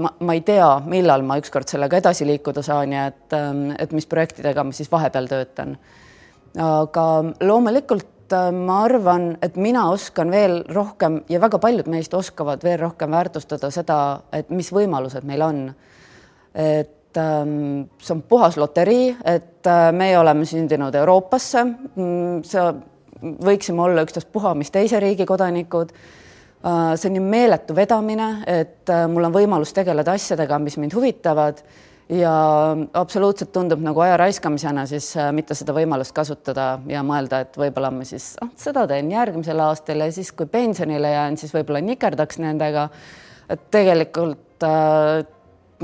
B: ma ei tea, millal ma ükskord sellega edasi liikuda saan ja et mis projektidega ma siis vahepeal töötan. Aga loomulikult ma arvan, et mina oskan veel rohkem ja väga paljud meist oskavad veel rohkem väärtustada seda, et mis võimalused meil on. Et see on puhas loterii, et meie oleme sündinud Euroopasse, võiksime olla ükstaspuha mis teise riigi kodanikud. See on nii meeletu vedamine, et mul on võimalus tegeleda asjadega, mis mind huvitavad ja absoluutselt tundub nagu aja raiskamisena siis mitte seda võimalust kasutada ja mõelda, et võib-olla ma siis seda teen järgmisel aastal ja siis kui pensionile jään, siis võib-olla nikerdaks nendega. Et tegelikult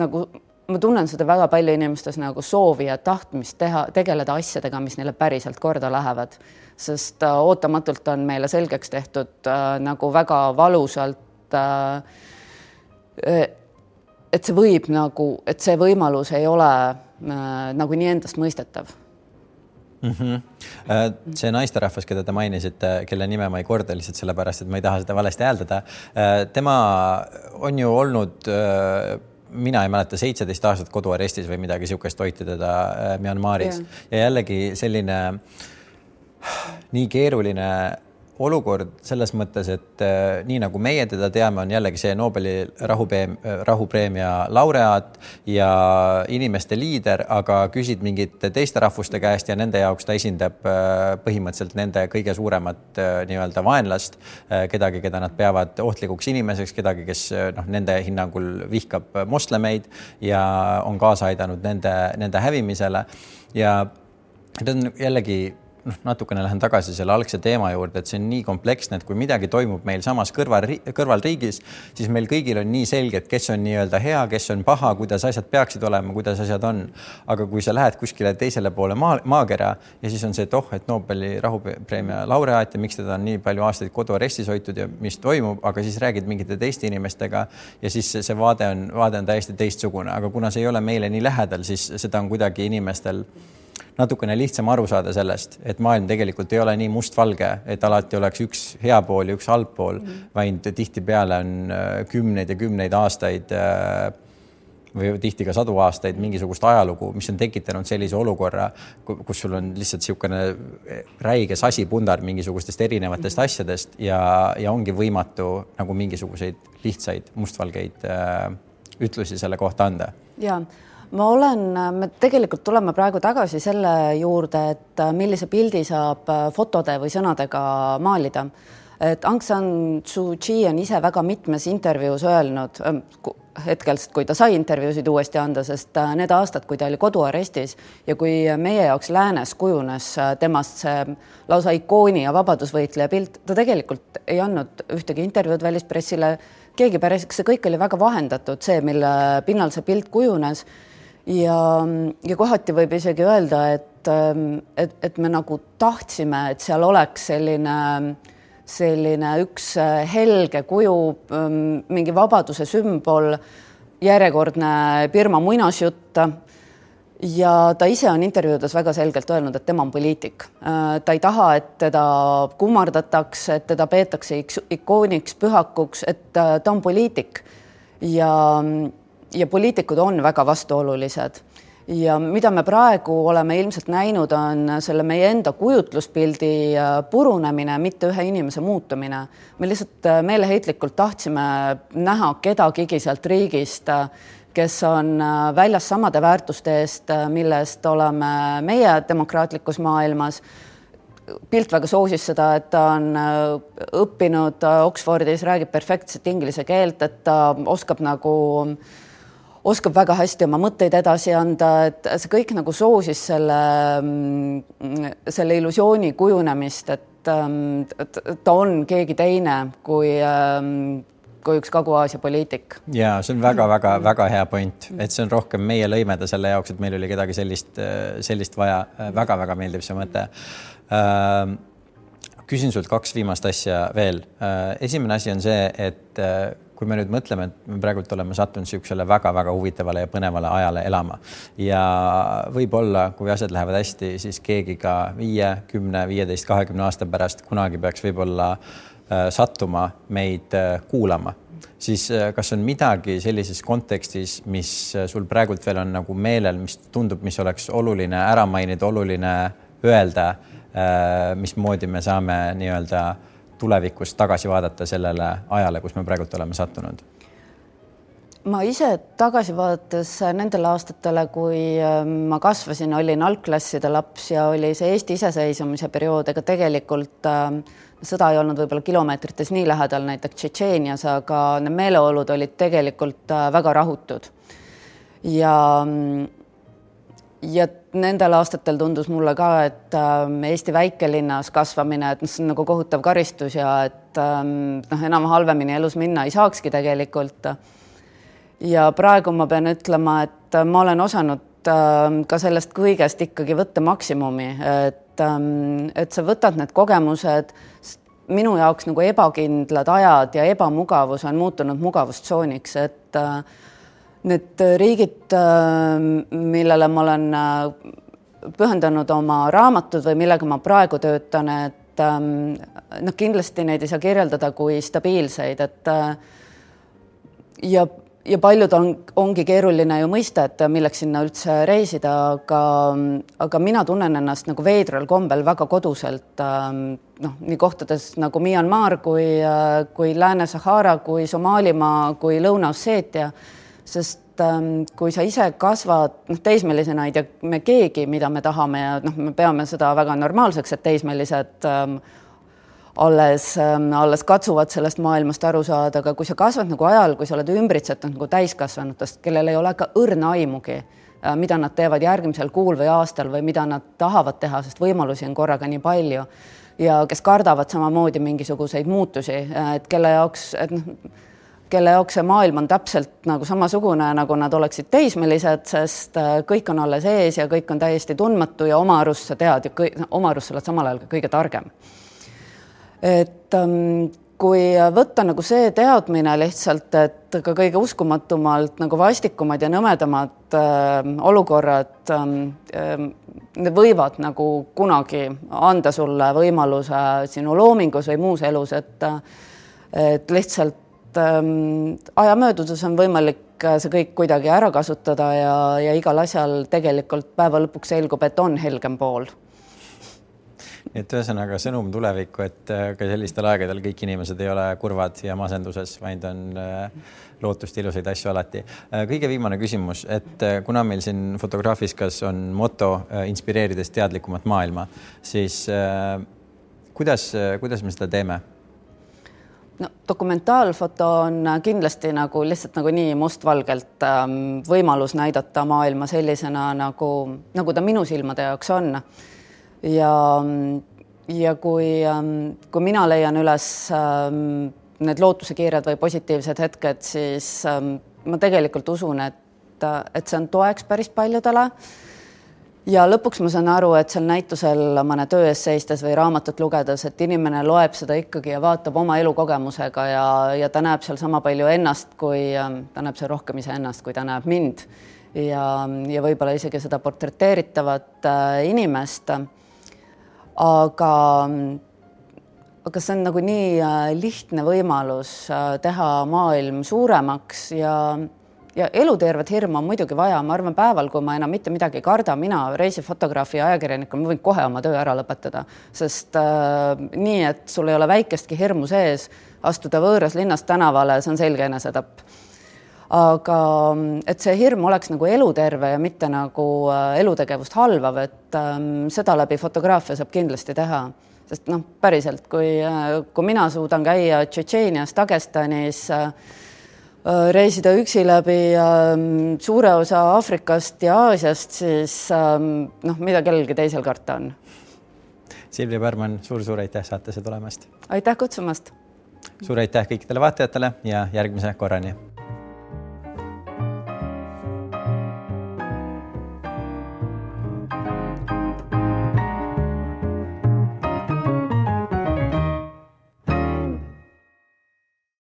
B: nagu ma tunnen seda väga palju inimestes nagu soovi ja tahtmist tegeleda asjadega, mis neile päriselt korda lähevad. Sest ootamatult on meile selgeks tehtud nagu väga valusalt, et see võib nagu, et see võimalus ei ole nagu nii endast mõistetav.
A: See naisterahvas, keda te mainisite, kelle nime ma ei korda lihtsalt sellepärast, et ma ei taha seda valesti hääldada. Tema on ju olnud mina ei mäleta 17 aastat koduarestis või midagi sihukest hoiti teda Myanmaris ja jällegi selline nii keeruline olukord selles mõttes, et nii nagu meie teda teame, on jällegi see Nobeli rahupreemia laureaat ja inimeste liider, aga küsid mingite teiste rahvuste käest ja nende jaoks ta esindab põhimõtteliselt nende kõige suuremat nii-öelda vaenlast, kedagi, keda nad peavad ohtlikuks inimeseks, kedagi, kes nende hinnangul vihkab moslemeid ja on kaasa aidanud nende hävimisele ja ta on jällegi natukene lähen tagasi selle algse teema juurde, et see on nii kompleksne, et kui midagi toimub meil samas kõrvalriigis, siis meil kõigil on nii selge, et kes on nii-öelda hea, kes on paha, kuidas asjad peaksid olema, kuidas asjad on. Aga kui sa lähed kuskile teisele poole maakera ja siis on see, et Nobeli rahupreemia laureaat ja miks teda on nii palju aastaid koduarestis hoitud ja mis toimub, aga siis räägid mingite teiste inimestega ja siis see vaade on täiesti teistsugune, aga kuna see ei ole meile nii lähedal, siis seda on kuidagi inimestel natukene lihtsam aru saada sellest, et maailm tegelikult ei ole nii mustvalge, et alati oleks üks hea pool ja üks halb pool, vaid tihtipeale on kümneid ja kümneid aastaid või tihti ka 100 aastaid mingisugust ajalugu, mis on tekitanud sellise olukorra, kus sul on lihtsalt niisugune räige sasipundar mingisugustest erinevatest asjadest ja ongi võimatu nagu mingisuguseid lihtsaid mustvalgeid ütlusi selle kohta anda.
B: Jaa. Me tegelikult tuleme praegu tagasi selle juurde, et millise pildi saab fotode või sõnadega maalida. Et Aung San Suu Kyi on ise väga mitmes intervjuus öelnud, hetkelt, kui ta sai intervjuusid uuesti anda, sest need aastad, kui ta oli koduarestis ja kui meie jaoks läänes kujunes temast see lausa ikooni ja vabadusvõitleja pilt, ta tegelikult ei andnud ühtegi intervjuud välispressile, keegi päris, see kõik oli väga vahendatud, see, mille pinnal see pilt kujunes. Ja kohati võib isegi öelda, et me nagu tahtsime, et seal oleks selline üks helge kuju, mingi vabaduse sümbol, järjekordne Birma muinasjutt ja ta ise on intervjuudes väga selgelt öelnud, et tema on poliitik. Ta ei taha, et teda kummardatakse, et teda peetakse ikooniks, pühakuks, et ta on poliitik ja poliitikud on väga vastuolulised ja mida me praegu oleme ilmselt näinud, on selle meie enda kujutluspildi purunemine, mitte ühe inimese muutumine. Me lihtsalt meeleheitlikult tahtsime näha kedagigi sealt riigist, kes on väljas samade väärtuste eest, millest oleme meie demokraatlikus maailmas. Pilt väga soosis seda, et ta on õppinud Oxfordis, räägib perfektset inglise keelt, et ta oskab väga hästi oma mõtteid edasi anda, et see kõik nagu soosis selle illusiooni kujunemist, et ta on keegi teine kui üks Kagu-Aasia poliitik.
A: Ja see on väga hea point, et see on rohkem meie lõimeda selle jaoks, et meil oli kedagi sellist vaja. Väga meeldib see mõte. Küsin sult 2 viimast asja veel. Esimene asi on see, et kui me nüüd mõtleme, et me praegult oleme sattunud siuksele väga huvitavale ja põnevale ajale elama ja võib-olla, kui asjad lähevad hästi, siis keegi ka 5, 10, 15, 20 aasta pärast kunagi peaks võib-olla sattuma meid kuulama. Siis kas on midagi sellises kontekstis, mis sul praegult veel on nagu meelel, mis tundub, mis oleks oluline ära mainida, oluline öelda, mismoodi me saame nii-öelda tulevikus tagasi vaadata sellele ajale, kus me praegult oleme sattunud?
B: Ma ise tagasi vaadates nendele aastatele, kui ma kasvasin, olin algklasside laps ja oli see Eesti iseseisvumise periood, ega tegelikult sõda ei olnud võib-olla kilomeetrites nii lähedal näiteks Tšetšeenias, aga need meeleolud olid tegelikult väga rahutud. Ja nendel aastatel tundus mulle ka, et Eesti väikelinnas kasvamine, et see on nagu kohutav karistus ja et enam halvemini elus minna ei saakski tegelikult. Ja praegu ma pean ütlema, et ma olen osanud ka sellest kõigest ikkagi võtta maksimumi, et sa võtad need kogemused, minu jaoks nagu ebakindlad ajad ja ebamugavus on muutunud mugavustsooniks, et need riigid, millele ma olen pühendanud oma raamatud või millega ma praegu töötan, et kindlasti neid ei saa kirjeldada kui stabiilseid, et ja paljud ongi keeruline ju mõista, et milleks sinna üldse reisida, aga mina tunnen ennast nagu veidral kombel väga koduselt, nii kohtades nagu Myanmar kui Lääne-Sahara, kui Somaalimaa, kui Lõuna-Osseetia, sest kui sa ise kasvad, teismelisena ei tea me keegi, mida me tahame ja me peame seda väga normaalseks, et teismelised alles katsuvad sellest maailmast aru saada, aga kui sa kasvad nagu ajal, kui sa oled ümbritsetud nagu täiskasvanutest, kellel ei ole ka õrna aimugi, mida nad teevad järgmisel kuul või aastal või mida nad tahavad teha, sest võimalusi on korraga nii palju ja kes kardavad samamoodi mingisuguseid muutusi, et kelle jaoks see maailm on täpselt nagu samasugune, nagu nad oleksid teismelised, sest kõik on alles ees ja kõik on täiesti tundmatu ja oma arust sa tead ja oma arust sa oled samal ajal ka kõige targem. Et kui võtta nagu see teadmine lihtsalt, et ka kõige uskumatumalt nagu vastikumad ja nõmedamad olukorrad need võivad nagu kunagi anda sulle võimaluse sinu loomingus või muus elus, et lihtsalt aja möödudes on võimalik see kõik kuidagi ära kasutada ja igal asjal tegelikult päeva lõpuks selgub, et on helgem pool.
A: Et ühesõnaga sõnum tulevikku, et ka sellistel aegadel kõik inimesed ei ole kurvad ja masenduses, vaid on lootust ilusaid asju alati. Kõige viimane küsimus, et kuna meil siin Fotografiskas on moto inspireerides teadlikumat maailma, siis kuidas me seda teeme?
B: No, dokumentaalfoto on kindlasti nagu lihtsalt nagu nii mustvalgelt võimalus näidata maailma sellisena, nagu ta minu silmade jaoks on. Ja kui mina leian üles need lootusekiired või positiivsed hetked, siis ma tegelikult usun, et see on toeks päris paljudele. Ja lõpuks ma saan aru, et seal näitusel mõne töö ees seistes või raamatut lugedes, et inimene loeb seda ikkagi ja vaatab oma elukogemusega ja ta näeb seal sama palju ennast, ta näeb seal rohkem ise ennast, kui ta näeb mind ja võib-olla isegi seda portreteeritavat inimest. Aga see on nagu nii lihtne võimalus teha maailm suuremaks ja elutervet hirmu on muidugi vaja. Ma arvan päeval, kui ma enam mitte midagi ei karda, mina reisifotograafi ja ajakirjanikul, ma võin kohe oma töö ära lõpetada, sest nii, et sul ei ole väikestki hirmu sees, astuda võõras linnast tänavale, see on selge enesetapp. Aga et see hirm oleks nagu eluterve ja mitte nagu elutegevust halvav, et seda läbi fotograafia saab kindlasti teha. Sest päriselt, kui mina suudan käia Tšetšeenias, Dagestanis, reisida üksi läbi suure osa Aafrikast ja Aasiast, siis mida kellelgi teisel karta on.
A: Silvia Pärman, suur aitäh saatesse tulemast.
B: Aitäh kutsumast.
A: Suur aitäh kõikidele vaatajatele ja järgmise korrani.